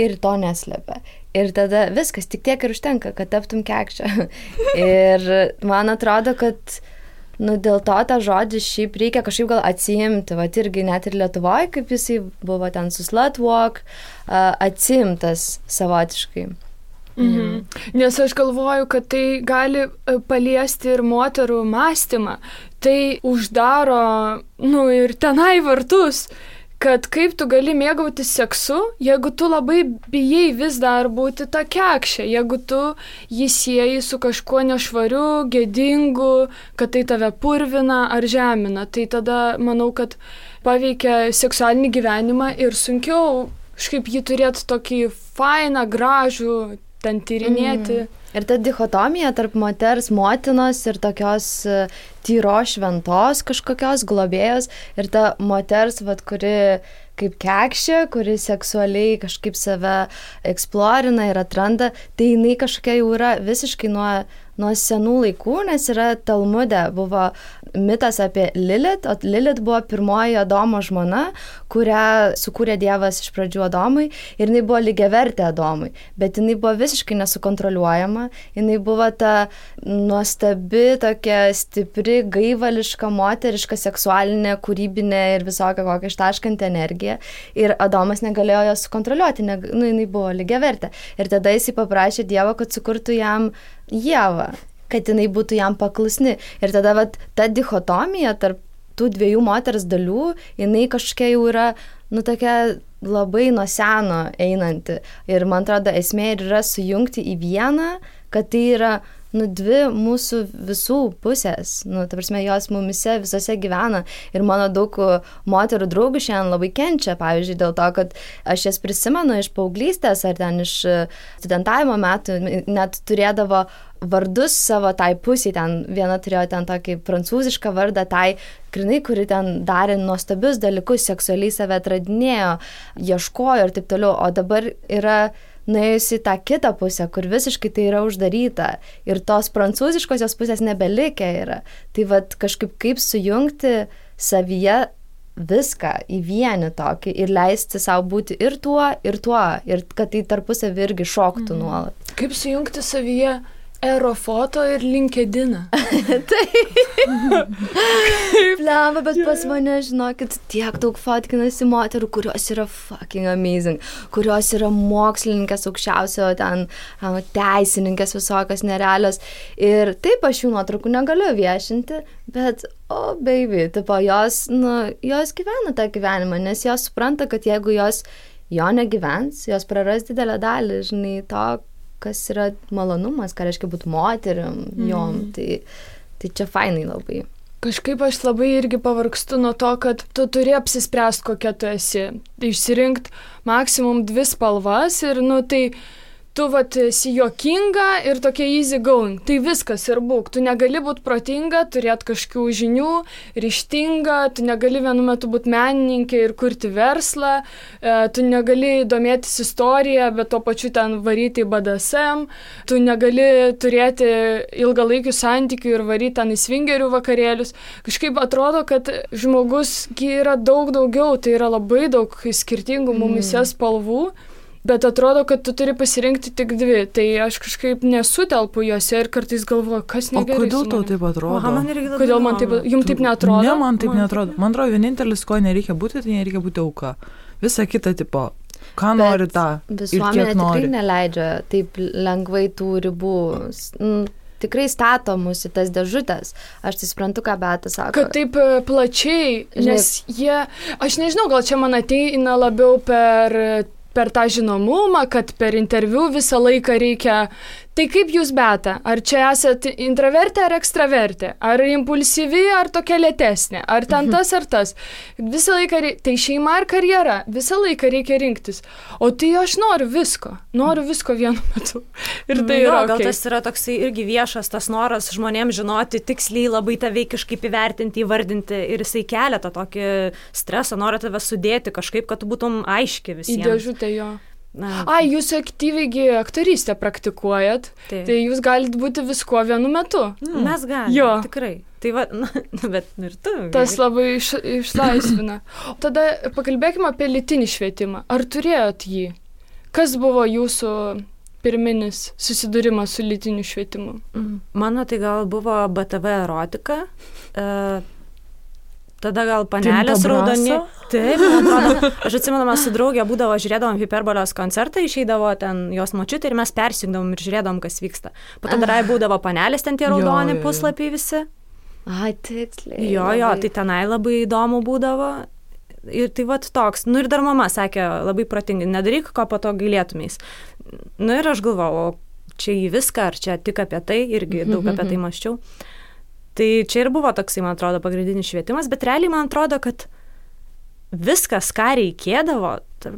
ir to neslepia. Ir tada viskas, tik tiek ir užtenka, kad taptum kekšė. Ir man atrodo, kad dėl to tą žodį šiaip reikia kažkaip gal atsiimti, irgi net ir Lietuvoje, kaip jisai buvo ten su slut walk, atsiimtas savotiškai. Nes aš galvoju, kad tai gali paliesti ir moterų mąstymą. Tai uždaro, ir tenai vartus, kad kaip tu gali mėgautis seksu, jeigu tu labai bijai vis dar būti ta kekšė, jeigu tu jį sieji su kažkuo nešvariu, gėdingu, kad tai tave purvina ar žemina. Tai tada manau, kad paveikia seksualinį gyvenimą ir sunkiau kažkaip jį turėti tokį fainą, gražų, ten tyrinėti. Ir ta dichotomija tarp moters, motinos ir tokios tyros šventos kažkokios globėjos ir ta moters, kuri kaip kekšė, kuri seksualiai kažkaip save eksplorina ir atranda, tai jinai kažkokia jau yra visiškai nuo senų laikų, nes yra Talmude buvo mitas apie Lilith, o Lilith buvo pirmoji Adomo žmona, kurią sukūrė Dievas iš pradžių Adomui ir jinai buvo lygiavertė Adomui, bet jinai buvo visiškai nesukontroliuojama, jinai buvo ta nuostabi, tokia stipri, gaivališka, moteriška, seksualinė, kūrybinė ir visokia kokia ištaškanti energija ir Adomas negalėjo jos sukontroliuoti, jinai buvo lygiavertė ir tada jisai paprašė Dievo, kad sukurtų jam Ievą, kad jinai būtų jam paklusni. Ir tada ta dichotomija tarp tų dviejų moters dalių, jinai kažkokia jau yra, tokia labai nuo seno einanti. Ir man atrodo, esmė yra sujungti į vieną, kad tai yra dvi mūsų visų pusės. Ta prasme, jos mumise visose gyvena. Ir mano daug moterų draugų šiandien labai kenčia, pavyzdžiui, dėl to, kad aš jas prisimenu iš paauglystės ar ten iš studentavimo metų, net turėdavo vardus savo tai pusiai, ten viena turėjo ten tokį prancūzišką vardą, tai grinai, kuri ten darė nuostabius dalykus, seksualiai save atradinėjo, ieškojo ir taip toliau, o dabar yra nuėjusi tą kitą pusę, kur visiškai tai yra uždaryta ir tos prancūziškosios pusės nebelikę yra. Tai kažkaip kaip sujungti savyje viską į vienį tokį ir leisti savo būti ir tuo, ir kad tai tarpusavy irgi šoktų nuolat. Kaip sujungti savyje Aerofoto ir LinkedIną. Blemba, bet pas mane, žinokit, tiek daug fotkinasi moterų, kurios yra fucking amazing, kurios yra mokslininkės aukščiausio, ten teisininkės visokios nerealios. Ir taip aš jų nuotraukų negaliu viešinti, bet, baby, tipo, jos gyvena tą gyvenimą, nes jos supranta, kad jeigu jos jo negyvens, jos praras didelę dalį, žinai, to, kas yra malonumas, ką reiškia būti moterim, jom, tai čia fainai labai. Kažkaip aš labai irgi pavargstu nuo to, kad tu turi apsispręsti, kokia tu esi. Išsirinkti maksimum 2 spalvas ir, tai tu vat esi juokinga ir tokia easy going. Tai viskas ir būk. Tu negali būti protinga, turėti kažkokių žinių, ryžtinga, tu negali vienu metu būti menininkė ir kurti verslą, tu negali domėtis istoriją, bet tuo pačiu ten varyti į BDSM, tu negali turėti ilgalaikių santykių ir varyti ten į svingerių vakarėlius. Kažkaip atrodo, kad žmogus yra daug daugiau, tai yra labai daug skirtingų mumyse spalvų. Bet atrodo, kad tu turi pasirinkti tik dvi. Tai aš kažkaip nesutelpu juose ir kartais galvoju, kas negerai. O kodėl tau taip atrodo? Kodėl man taip, jums taip neatrodo? Ne, man taip neatrodo. Man atrodo, vienintelis, ko nereikia būti, tai nereikia būti auka. Visa kita tipo, ką nori tą ir kiek nori. Visuomenė tikrai neleidžia taip lengvai tų ribų. Tikrai stato mus į tas dėžutės. Aš tai suprantu, ką Beata sako. Kad taip plačiai, nes jie, aš nežinau, gal čia man ateina labiau per tą žinomumą, kad per interviu visą laiką reikia. Tai kaip jūs, Beata? Ar čia esate intravertė ar ekstravertė? Ar impulsyvi, ar tokia lėtesnė? Ar ten tas ar tas? Visą laiką tai šeima ar karjera? Visą laiką reikia rinktis. O tai aš noriu visko vienu metu. Ir tai yra gal tas yra toksai irgi viešas tas noras žmonėms žinoti, tiksliai labai tave kažkaip įvertinti, įvardinti ir jisai kelia tą tokį stresą, nori tave sudėti kažkaip, kad tu būtum aiški visiems. Į dėžutę jo. Jūs aktyviai aktorystę praktikuojat, tai jūs galite būti viskuo vienu metu. Mes galime, tikrai. Tai va, bet ir tu. Tas labai išlaisvina. Tada pakalbėkime apie lytinį švietimą. Ar turėjot jį? Kas buvo jūsų pirminis susidūrimas su lytiniu švietimu? Mano tai gal buvo BTV erotika. Tada gal panelės raudoni. Taip, aš atsimenu, mes su draugė būdavo, žiūrėdavom Hiperbolės koncertą, išeidavo ten jos močiutė ir mes persijungdavom ir žiūrėdavom, kas vyksta. Po to dar būdavo panelės, ten tie raudoni puslapiai visi. Tiksliai. Jo, tai tenai labai įdomu būdavo. Ir tai vat toks. Ir dar mama sakė labai protingai, nedaryk, ko po to gailėtumeis. Ir aš galvojau, čia į viską, ar čia tik apie tai, irgi daug apie tai mąsčiau. Tai čia ir buvo toksai, man atrodo, pagrindinis švietimas, bet realiai man atrodo, kad viskas, ką reikėdavo,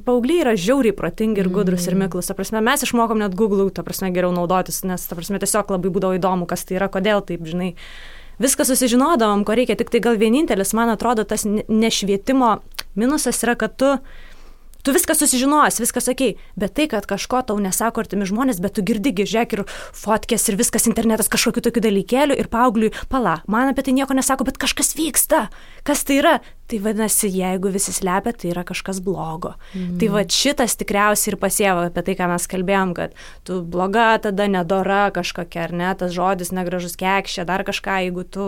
paaugliai yra žiauriai protingi ir gudrus ir miklus. Ta prasme, mes išmokom net Google, ta prasme, geriau naudotis, nes, ta prasme, tiesiog labai būdavo įdomu, kas tai yra, kodėl taip, žinai. Viską susižinodavom, ko reikia, tik tai gal vienintelis, man atrodo, tas nešvietimo minusas yra, kad tu viską susižinosi, viskas okei, bet tai, kad kažko tau nesako artimi žmonės, bet tu girdigi, žiūrėk ir fotkės ir viskas internetas kažkokiu tokiu dalykėliu ir paaugliui, man apie tai nieko nesako, bet kažkas vyksta, kas tai yra? Tai vadinasi, jeigu visi slepia, tai yra kažkas blogo. Tai va šitas tikriausiai ir pasieva apie tai, ką mes kalbėjom, kad tu bloga, tada nedora kažkokia, ar ne, tas žodis negražus kekšė, dar kažką, jeigu tu,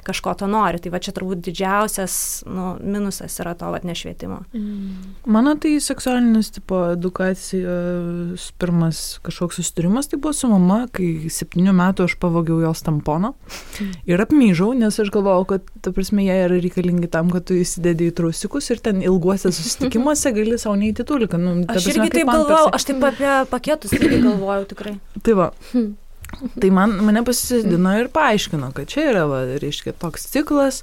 kažko to nori. Tai va čia turbūt didžiausias, minusas yra to nešvietimo. Mano tai seksualinis tipo edukacijos pirmas kažkoks susitarimas, tai buvo su mama, kai 7 metų aš pavogiau jos tamponą ir apmyžau, nes aš galvojau, kad, ta prasme, jie yra reikalingi tam, kad tu įsidedi į trusikus ir ten ilguose susitikimuose gali savo neįti tuliką. Aš irgi taip galvojau, aš taip apie paketus irgi galvojau tikrai. Tai va, tai mane pasisėdino ir paaiškino, kad čia yra, reiškia, toks ciklas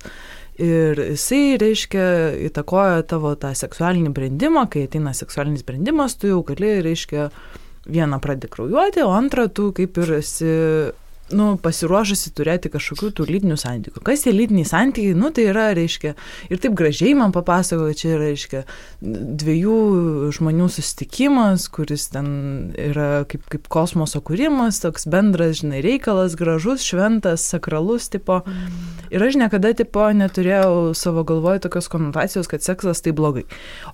ir jisai, reiškia, įtakoja tavo tą seksualinį brendimą, kai ateina seksualinis brendimas, tu jau gali, reiškia, vieną pradedi kraujuoti, o antrą tu kaip ir esi pasiruošusi turėti kažkokių tų lytinių santykių. Kas tie lytiniai santykiai? Tai yra, reiškia, ir taip gražiai man papasakojo, čia yra, reiškia, 2 žmonių susitikimas, kuris ten yra kaip kosmoso kūrimas, toks bendras, žinai, reikalas, gražus, šventas, sakralus, tipo. Ir aš niekada, tipo, neturėjau savo galvoje tokios konotacijos, kad seksas tai blogai.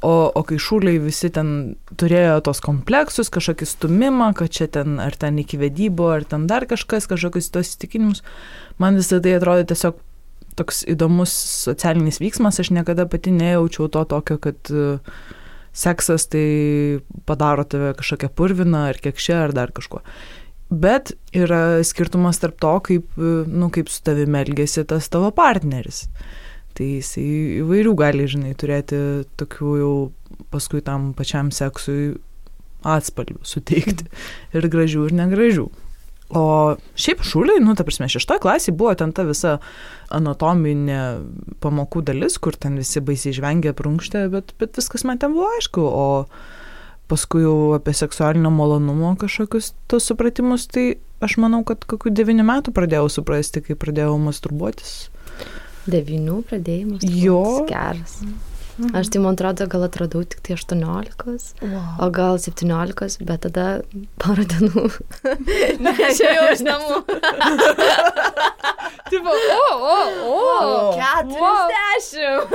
O kai šūliai visi ten turėjo tos kompleksus, kažkokį stumimą, kad čia ten, ar ten iki vedybų, ar ten dar kažkokius tos įsitikinimus. Man visą tai atrodo tiesiog toks įdomus socialinis vyksmas. Aš niekada pati nejaučiau to tokio, kad seksas tai padaro tave kažkokią purviną ar kekšę ar dar kažko. Bet yra skirtumas tarp to, kaip su tavimi elgėsi tas tavo partneris. Tai jisai įvairių gali, žinai, turėti tokių jau paskui tam pačiam seksui atspalvių suteikti. Ir gražių, ir negražių. O šiaip šūliai, ta prasme, 6 klasėje buvo ten ta visa anatominė pamokų dalis, kur ten visi baisiai žvengė prunkštė, bet viskas man ten buvo aišku. O paskui jau apie seksualinio malonumo kažkokius tos supratimus, tai aš manau, kad kokių 9 metų pradėjau suprasti, kai pradėjau masturbuotis. 9 pradėjai masturbuotis. Jo. Geras. Aš tai, man atrodo, gal atradau tik tai 18, o gal 17, bet tada porą dienų. Neišėjau iš namų. Tipo, 40.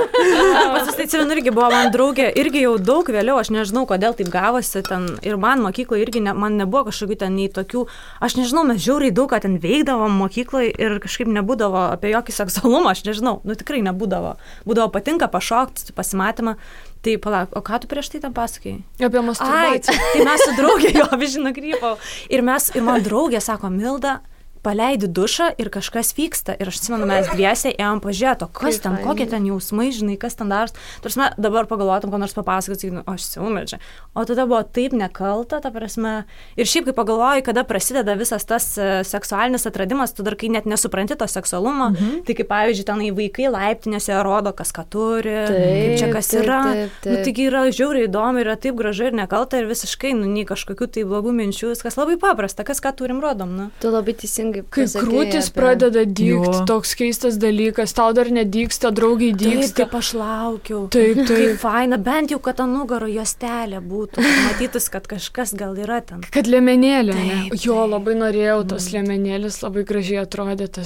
Pasisteicijau, irgi buvo man draugė, irgi jau daug vėliau, aš nežinau, kodėl taip gavosi ten, ir man mokykloje irgi man nebuvo kažkokių ten nei tokių, aš nežinau, mes žiauriai daug ką ten veikdavom mokykloje ir kažkaip nebūdavo apie jokį seksualumą, aš nežinau, tikrai nebūdavo. Būdavo patinka pašokti, pasimatymą. Tai palauk, o ką tu prieš tai tam pasakėjai? Apie masturbaciją. Tai mes su draugė jo vižino krypau. Ir man draugė sako, Milda, paleidi dušą ir kažkas vyksta. Ir aš atsimenu, mes dviesiai ėjom pažiūrėti, kas ten, kokie ten jausmai, žinai, kas ten daros. Tarsi dabar pagalvotum, ko nors papasakoti, aš siūmečiau. O tada buvo taip nekalta, ta prasme. Ir šiaip, kai pagalvoji, kada prasideda visas tas seksualinis atradimas, tu dar kai net nesupranti to seksualumo, tai kaip pavyzdžiui, tenai vaikai laiptinėse rodo, kas ką turi, kaip čia kas yra. Taigi yra žiauriai įdomu, yra taip gražu ir nekalta ir visiškai, nei kažkokių tai blogų minčių, viskas labai paprasta, kas ką turim rodom. Tu labai teisingai. Kai krūtis pradeda dygti, toks keistas dalykas, tau dar nedygsta, draugiai dygsta. Taip, kaip aš laukiau. Taip. Kaip faina, bent jau, kad ant nugaro juostelė būtų, matytus, kad kažkas gal yra ten. Kad liemenėlė, ne? Jo, labai norėjau, tas liemenėlis labai gražiai atrodė, ta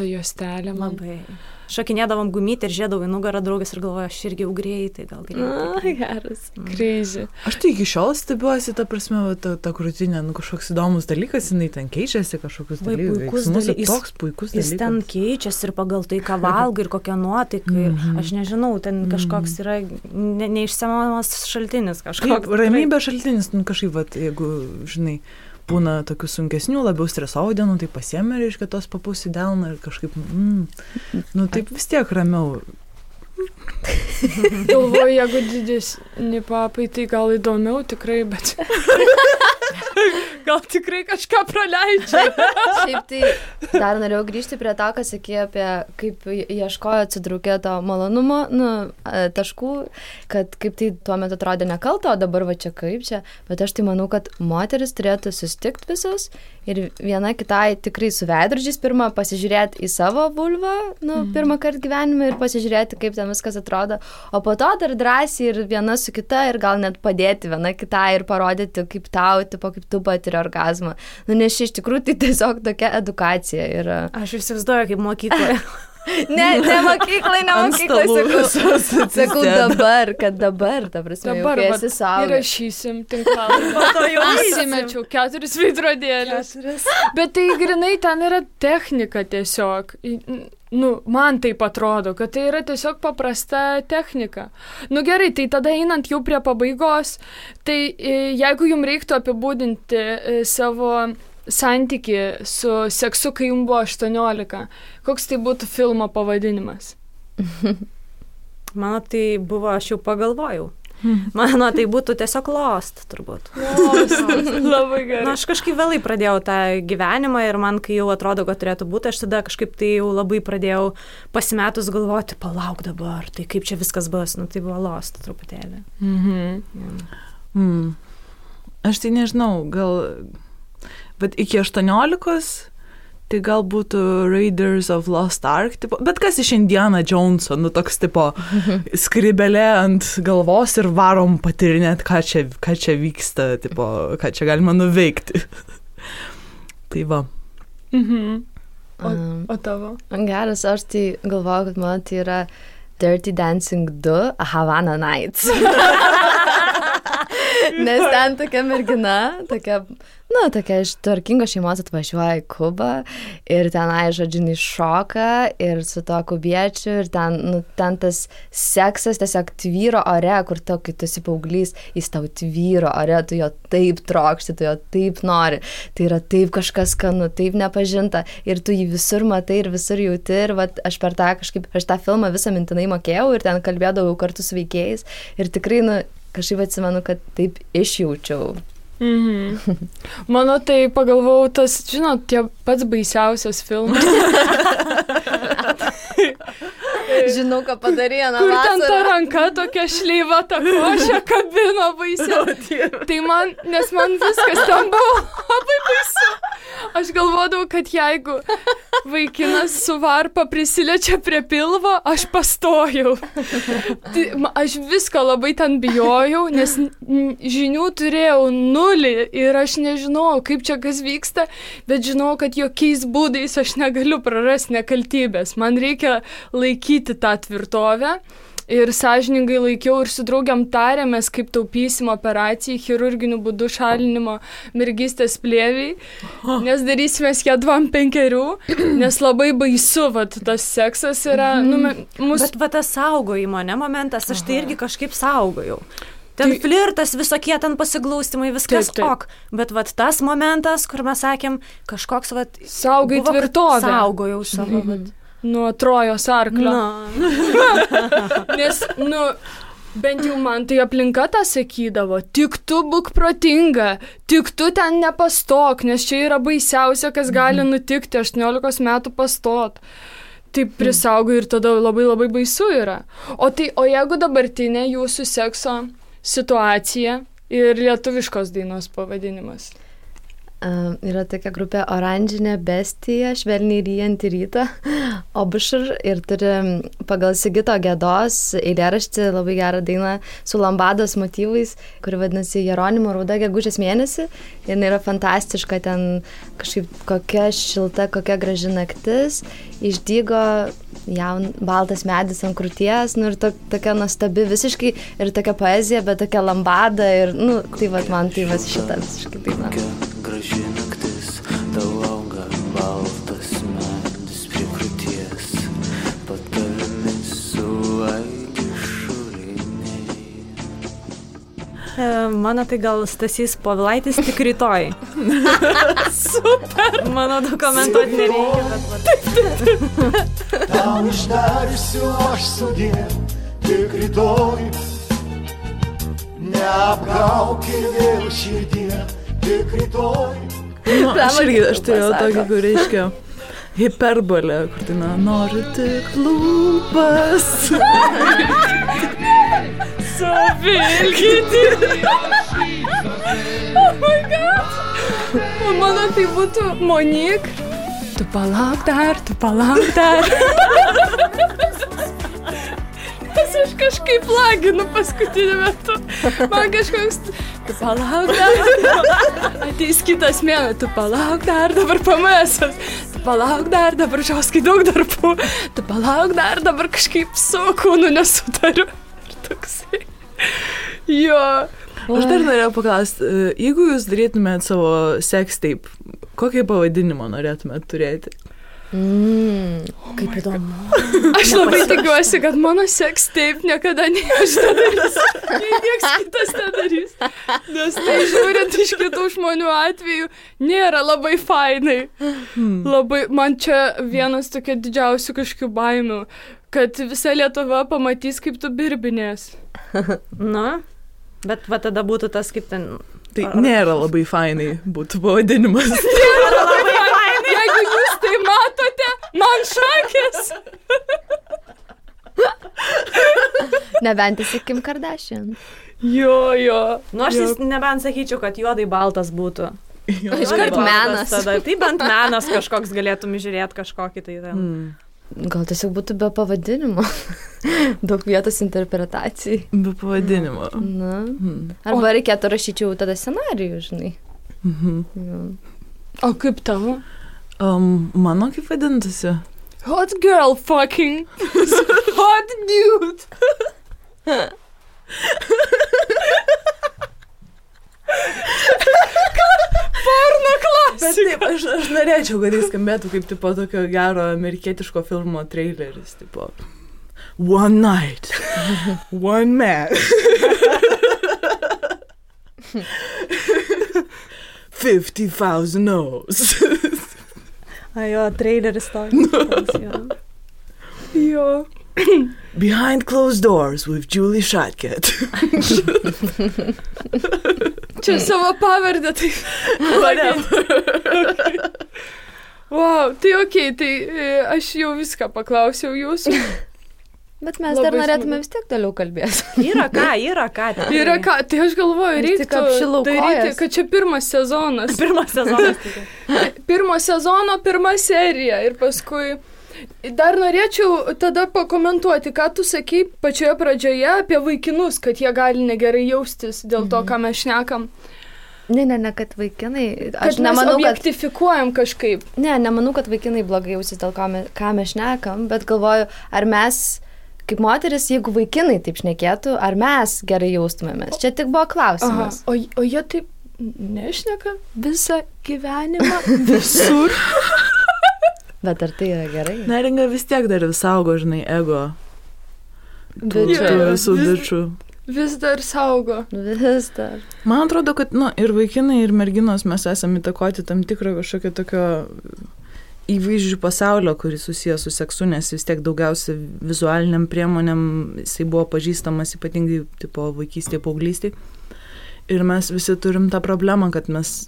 juostelė. Labai. Šokinėdavom gumytį ir žiedavau į nugarą draugės ir galvoju, aš irgi jau greitai, gal greitai. Geras. Crazy. Aš tai iki šiol stebiuosi, ta prasme, ta krūtinė, kažkoks įdomus dalykas, jinai ten keičiasi kažkokius dalykus. Toks puikus dalykas. Jis ten keičiasi ir pagal tai, ką valgai ir kokią nuotaiką. Aš nežinau, ten kažkoks yra neišsemiamas šaltinis kažkoks. Ramybės šaltinis, kažkaip, jeigu, žinai, būna tokių sunkesnių, labiau stresuojų dienų, tai pasiėmė, reiškia, tos papus į delną ir kažkaip, taip vis tiek ramiau. Galvoju, jeigu didesni papai, tai gal įdomiau tikrai, bet gal tikrai kažką praleidžia. Šiaip tai dar norėjau grįžti prie to, ką sakė apie kaip ieškojo atsitraukė to malonumo, taškų, kad kaip tai tuo metu atrodė nekalta, o dabar va čia kaip čia, bet aš tai manau, kad moteris turėtų susitikti visos ir viena kitai tikrai su veidrodžiais pirmą pasižiūrėti į savo vulvą, pirmą kartą gyvenime ir pasižiūrėti, kaip ten viskas atrodo, o po to dar drąsiai ir viena su kita ir gal net padėti viena kitai ir parodyti, kaip tau, tipo, kaip tu patiri orgazmą. Nes iš tikrųjų tai tiesiog tokia edukacija yra. Aš įsivaizduoju, kaip mokykloje. Ne mokyklai, sakau dabar, ta prasme, dabar, jau esi saugas. Įrašysim tinklalaidį. Jau įsimečiau 4 veidrodėlius. Bet tai grinai ten yra technika tiesiog. Man taip atrodo, kad tai yra tiesiog paprasta technika. Gerai, tai tada einant jau prie pabaigos, tai jeigu jums reiktų apibūdinti savo santykį su seksu, kai jums buvo 18, koks tai būtų filmo pavadinimas? Mano tai buvo, aš jau pagalvojau. Mano tai būtų tiesiog Lost, turbūt. Labai gerai. Aš kažkaip vėlai pradėjau tą gyvenimą ir man, kai jau atrodo, kad turėtų būti, aš tada kažkaip tai jau labai pradėjau pasimetus galvoti, palauk dabar, tai kaip čia viskas bus, tai buvo Lost truputėlį. Aš tai nežinau, gal, bet iki 18, tai gal būtų Raiders of Lost Ark, tipo, bet kas iš Indiana Joneso, toks tipo skribelė ant galvos ir varom patirinėti, ką čia vyksta, tipo, ką čia galima nuveikti. Tai va. O tavo? Geras, aš tai galvoju, kad man tai yra Dirty Dancing 2 Havana Nights. Nes ten tokia mergina, tokia iš tvarkingos šeimos atvažiuoja į Kubą ir tenai, žodžiu, šoka ir su to kubiečiu ir ten tas seksas tiesiog tvyro ore, kur to, kai tu esi paauglys, jis tau tvyro ore, tu jo taip trokšti, tu jo taip nori, tai yra taip kažkas skanu, taip nepažinta ir tu jį visur matai ir visur jauti ir vat, aš per tą filmą visą mintinai mokėjau ir ten kalbėdavau kartu su veikėjais ir tikrai, kažkaip atsimenu, kad taip išjaučiau. Mano tai pagalvojau, tas, žinot, tie pats baisiausias filmas. Žinau, ką padarė, kur ten ta ranka tokia šleiva, ta košė kabino baisiai. Tai nes man viskas ten buvo labai baisu. Aš galvodavau, kad jeigu vaikinas su varpa prisiliečia prie pilvo, aš pastojau. Tai, aš visko labai ten bijojau, nes žinių turėjau 0 ir aš nežinau, kaip čia kas vyksta, bet žinau, kad jokiais būdais aš negaliu prarasti nekaltybės. Man reikia laikyti tą tvirtovę. Ir sąžiningai laikiau ir su draugiam tarėmės, kaip taupysim operacijai, chirurginiu būdu šalinimo mergystės plėviai, nes darysimės ją 2-5, nes labai baisu, tas seksas yra. Bet tas saugojimo, momentas, aš tai irgi kažkaip saugojau. Ten flirtas, visokie ten pasiglaustimai, viskas ok. Bet tas momentas, kur mes sakėm, kažkoks saugai tvirtovę. Saugojau savo. Nuo Trojos arklio. Nes, bent jau man tai aplinka tą sakydavo, tik tu būk protinga, tik tu ten nepastok, nes čia yra baisiausia, kas gali nutikti, 18 metų pastot. Taip prisaugai ir tada labai labai baisu yra. O jeigu dabartinė jūsų sekso situacija ir lietuviškos dainos pavadinimas? Yra tokia grupė Oranžinė bestija, švelniai ryjantį rytą, Obušur, ir turi pagal Sigito Gedos eilėraštį labai gerą dainą su lambados motyvais, kuri vadinasi Jeronimo rauda gegužės mėnesį. Ir yra fantastiška, ten kažkaip kokia šilta, kokia graži naktis, išdygo baltas medis ant krūties, ir tokia nuostabi visiškai, ir tokia poezija, bet tokia lambada, ir, tai man tai šitą visiškai daina. Graži naktis, tau auga baltas medis prie krūties, patarmis suaigi šuliniai. Mano tai gal Stasys Povilaitis tik rytoj. Super! Mano dokumentuoti nereikia, bet Tau išdarysiu aš sudie, tik rytoj, neapgauki vėl širdie. Aš turėjau tokį, kur reiškia hiperbolę, kur tai noriu tik lūpas. Suvilkyti. Oh my god. Mano tai būtų Monik. Tu palauk dar. Nes aš kažkaip laginu paskutiniu metu. Man kažkoks, tu palauk dar. Ateis kitas mėnuo, tu palauk dar, dabar pamėsas. Tu palauk dar, dabar žiauskai daug darbų. Tu palauk dar, dabar kažkaip su kūnu nesutariu. Ir toksai. Jo. Aš dar norėjau paklausti, jeigu jūs darytumėt savo sex tape, kokį pavadinimą norėtumėt turėti? Kaip įdomu. Aš labai tikiuosi, kad mano sex tape niekada aš nedarys. Niekas kitas nedarys. Nes tai žiūrint iš kitų žmonių atveju nėra labai fainai. Labai, man čia vienas tokia didžiausių kažkokių baimių, kad visa Lietuva pamatys, kaip tu birbinės. Bet tada būtų tas kaip ten... Tai nėra labai fainai būtų pavadinimas. Nėra labai fainai. Jeigu jūs tai matote, man šakės. Nebent esi Kim Kardashian. Jo. Aš nebent sakyčiau, kad juodai baltas būtų. Iškart menas. Tada, tai bent menas kažkoks galėtum žiūrėti kažkokį tai ten. Gal tiesiog būtų be pavadinimo. Daug vietos interpretacijai. Be pavadinimo. Arba reikėtų rašyčiau tada scenarijų, žinai. O kaip tavo? Mano kaip vadintasi? Hot girl fucking. Hot dude. Porno klasika. Bet taip, aš norėčiau, kad jis skambėtų kaip tipo tokio gero amerikietiško filmo traileris, tipo One night, one man, 50,000 no's. Jo, traileris toks. Jo. Behind closed doors with Julie Shotcat. Čia savo pavardę, tai... Wow, tai okei, tai aš jau viską paklausiau jūsų. Bet mes Labai dar norėtume smagu. vis tiek toliau kalbėti. Yra ką. Yra ką, tai aš galvoju, Aš tik reiktų apšilau daryti, kojas. kad čia pirmas sezonas. Pirmas sezonas. Pirmo sezono, pirma serija ir paskui... Dar norėčiau tada pakomentuoti, ką tu sakei pačioje pradžioje apie vaikinus, kad jie gali negerai jaustis dėl to, ką mes šnekam. Ne, kad vaikinai... Kad Aš mes nemanau, kad... objektifikuojam kažkaip. Nemanau, kad vaikinai blogai jausis dėl ką mes šnekam, bet galvoju, ar mes, kaip moteris, jeigu vaikinai taip šnekėtų, ar mes gerai jaustumėmės. Čia tik buvo klausimas. O jie taip nešneka visą gyvenimą visur. Bet ar tai yra gerai? Neringa vis tiek dar vis saugo, žinai, ego. Tų Jo, visų bičių. Vis dar saugo. Vis dar. Man atrodo, kad ir vaikinai, ir merginos mes esame įtakoti tam tikrą kažkokio tokio įvaizdžių pasaulio, kuris susijęs su seksu, nes vis tiek daugiausia vizualiniam priemonėm jisai buvo pažįstamas ypatingai tipo vaikystėje, paauglystėje. Ir mes visi turim tą problemą, kad mes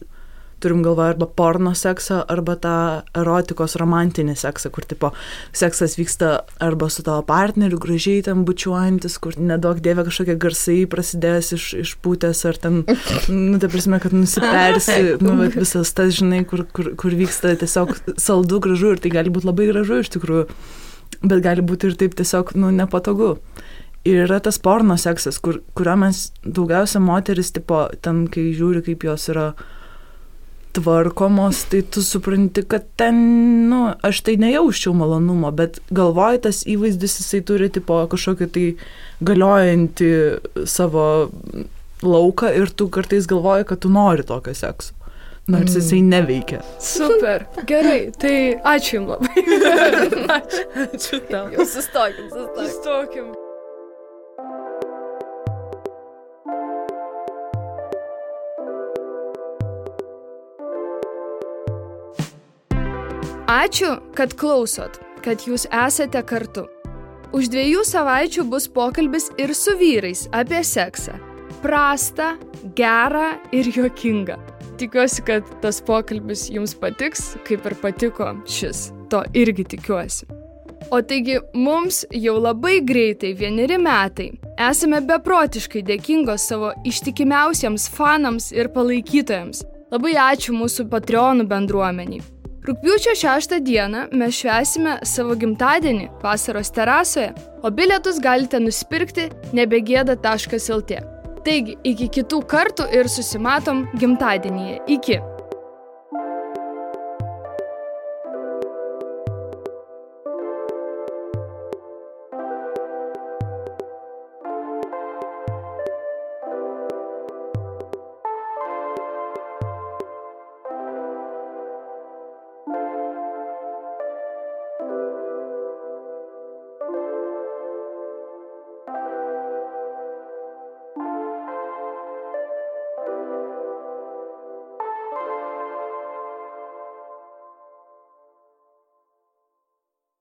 turim galvoje arba porno seksą, arba tą erotikos romantinį seksą, kur tipo seksas vyksta arba su tavo partneriu, gražiai ten bučiuojantis, kur nedaug dievė kažkokie garsai prasidės iš pūtės, ar ten, tai prasme, kad nusipersi, bet visas tas, žinai, kur vyksta tiesiog saldu, gražu, ir tai gali būti labai gražu iš tikrųjų, bet gali būti ir taip tiesiog, nepatogu. Ir yra tas porno seksas, kurio mes daugiausia moteris, tipo, ten, kai žiūri, kaip jos yra tvarkomos, tai tu supranti, kad ten, aš tai nejauščiau malonumo, bet galvoju, tas įvaizdis jisai turi tipo kažkokį tai galiojantį savo lauką ir tu kartais galvoji, kad tu nori tokio sekso, nors jisai neveikia. Super, gerai, tai ačiū jums labai. Ačiū tau. Jau sustokim. Sustokim. Ačiū, kad klausot, kad jūs esate kartu. Už 2 savaičių bus pokalbis ir su vyrais apie seksą. Prastą, gerą ir juokingą. Tikiuosi, kad tas pokalbis jums patiks, kaip ir patiko šis. To irgi tikiuosi. O taigi, mums jau labai greitai 1 metai. Esame beprotiškai dėkingos savo ištikimiausiems fanams ir palaikytojams. Labai ačiū mūsų Patreonų bendruomeniai. Rugpjūčio 6 dieną mes švęsime savo gimtadienį Vasaros terasoje, o bilietus galite nusipirkti nebegėda.lt. Taigi, iki kitų kartų ir susimatom gimtadienyje. Iki.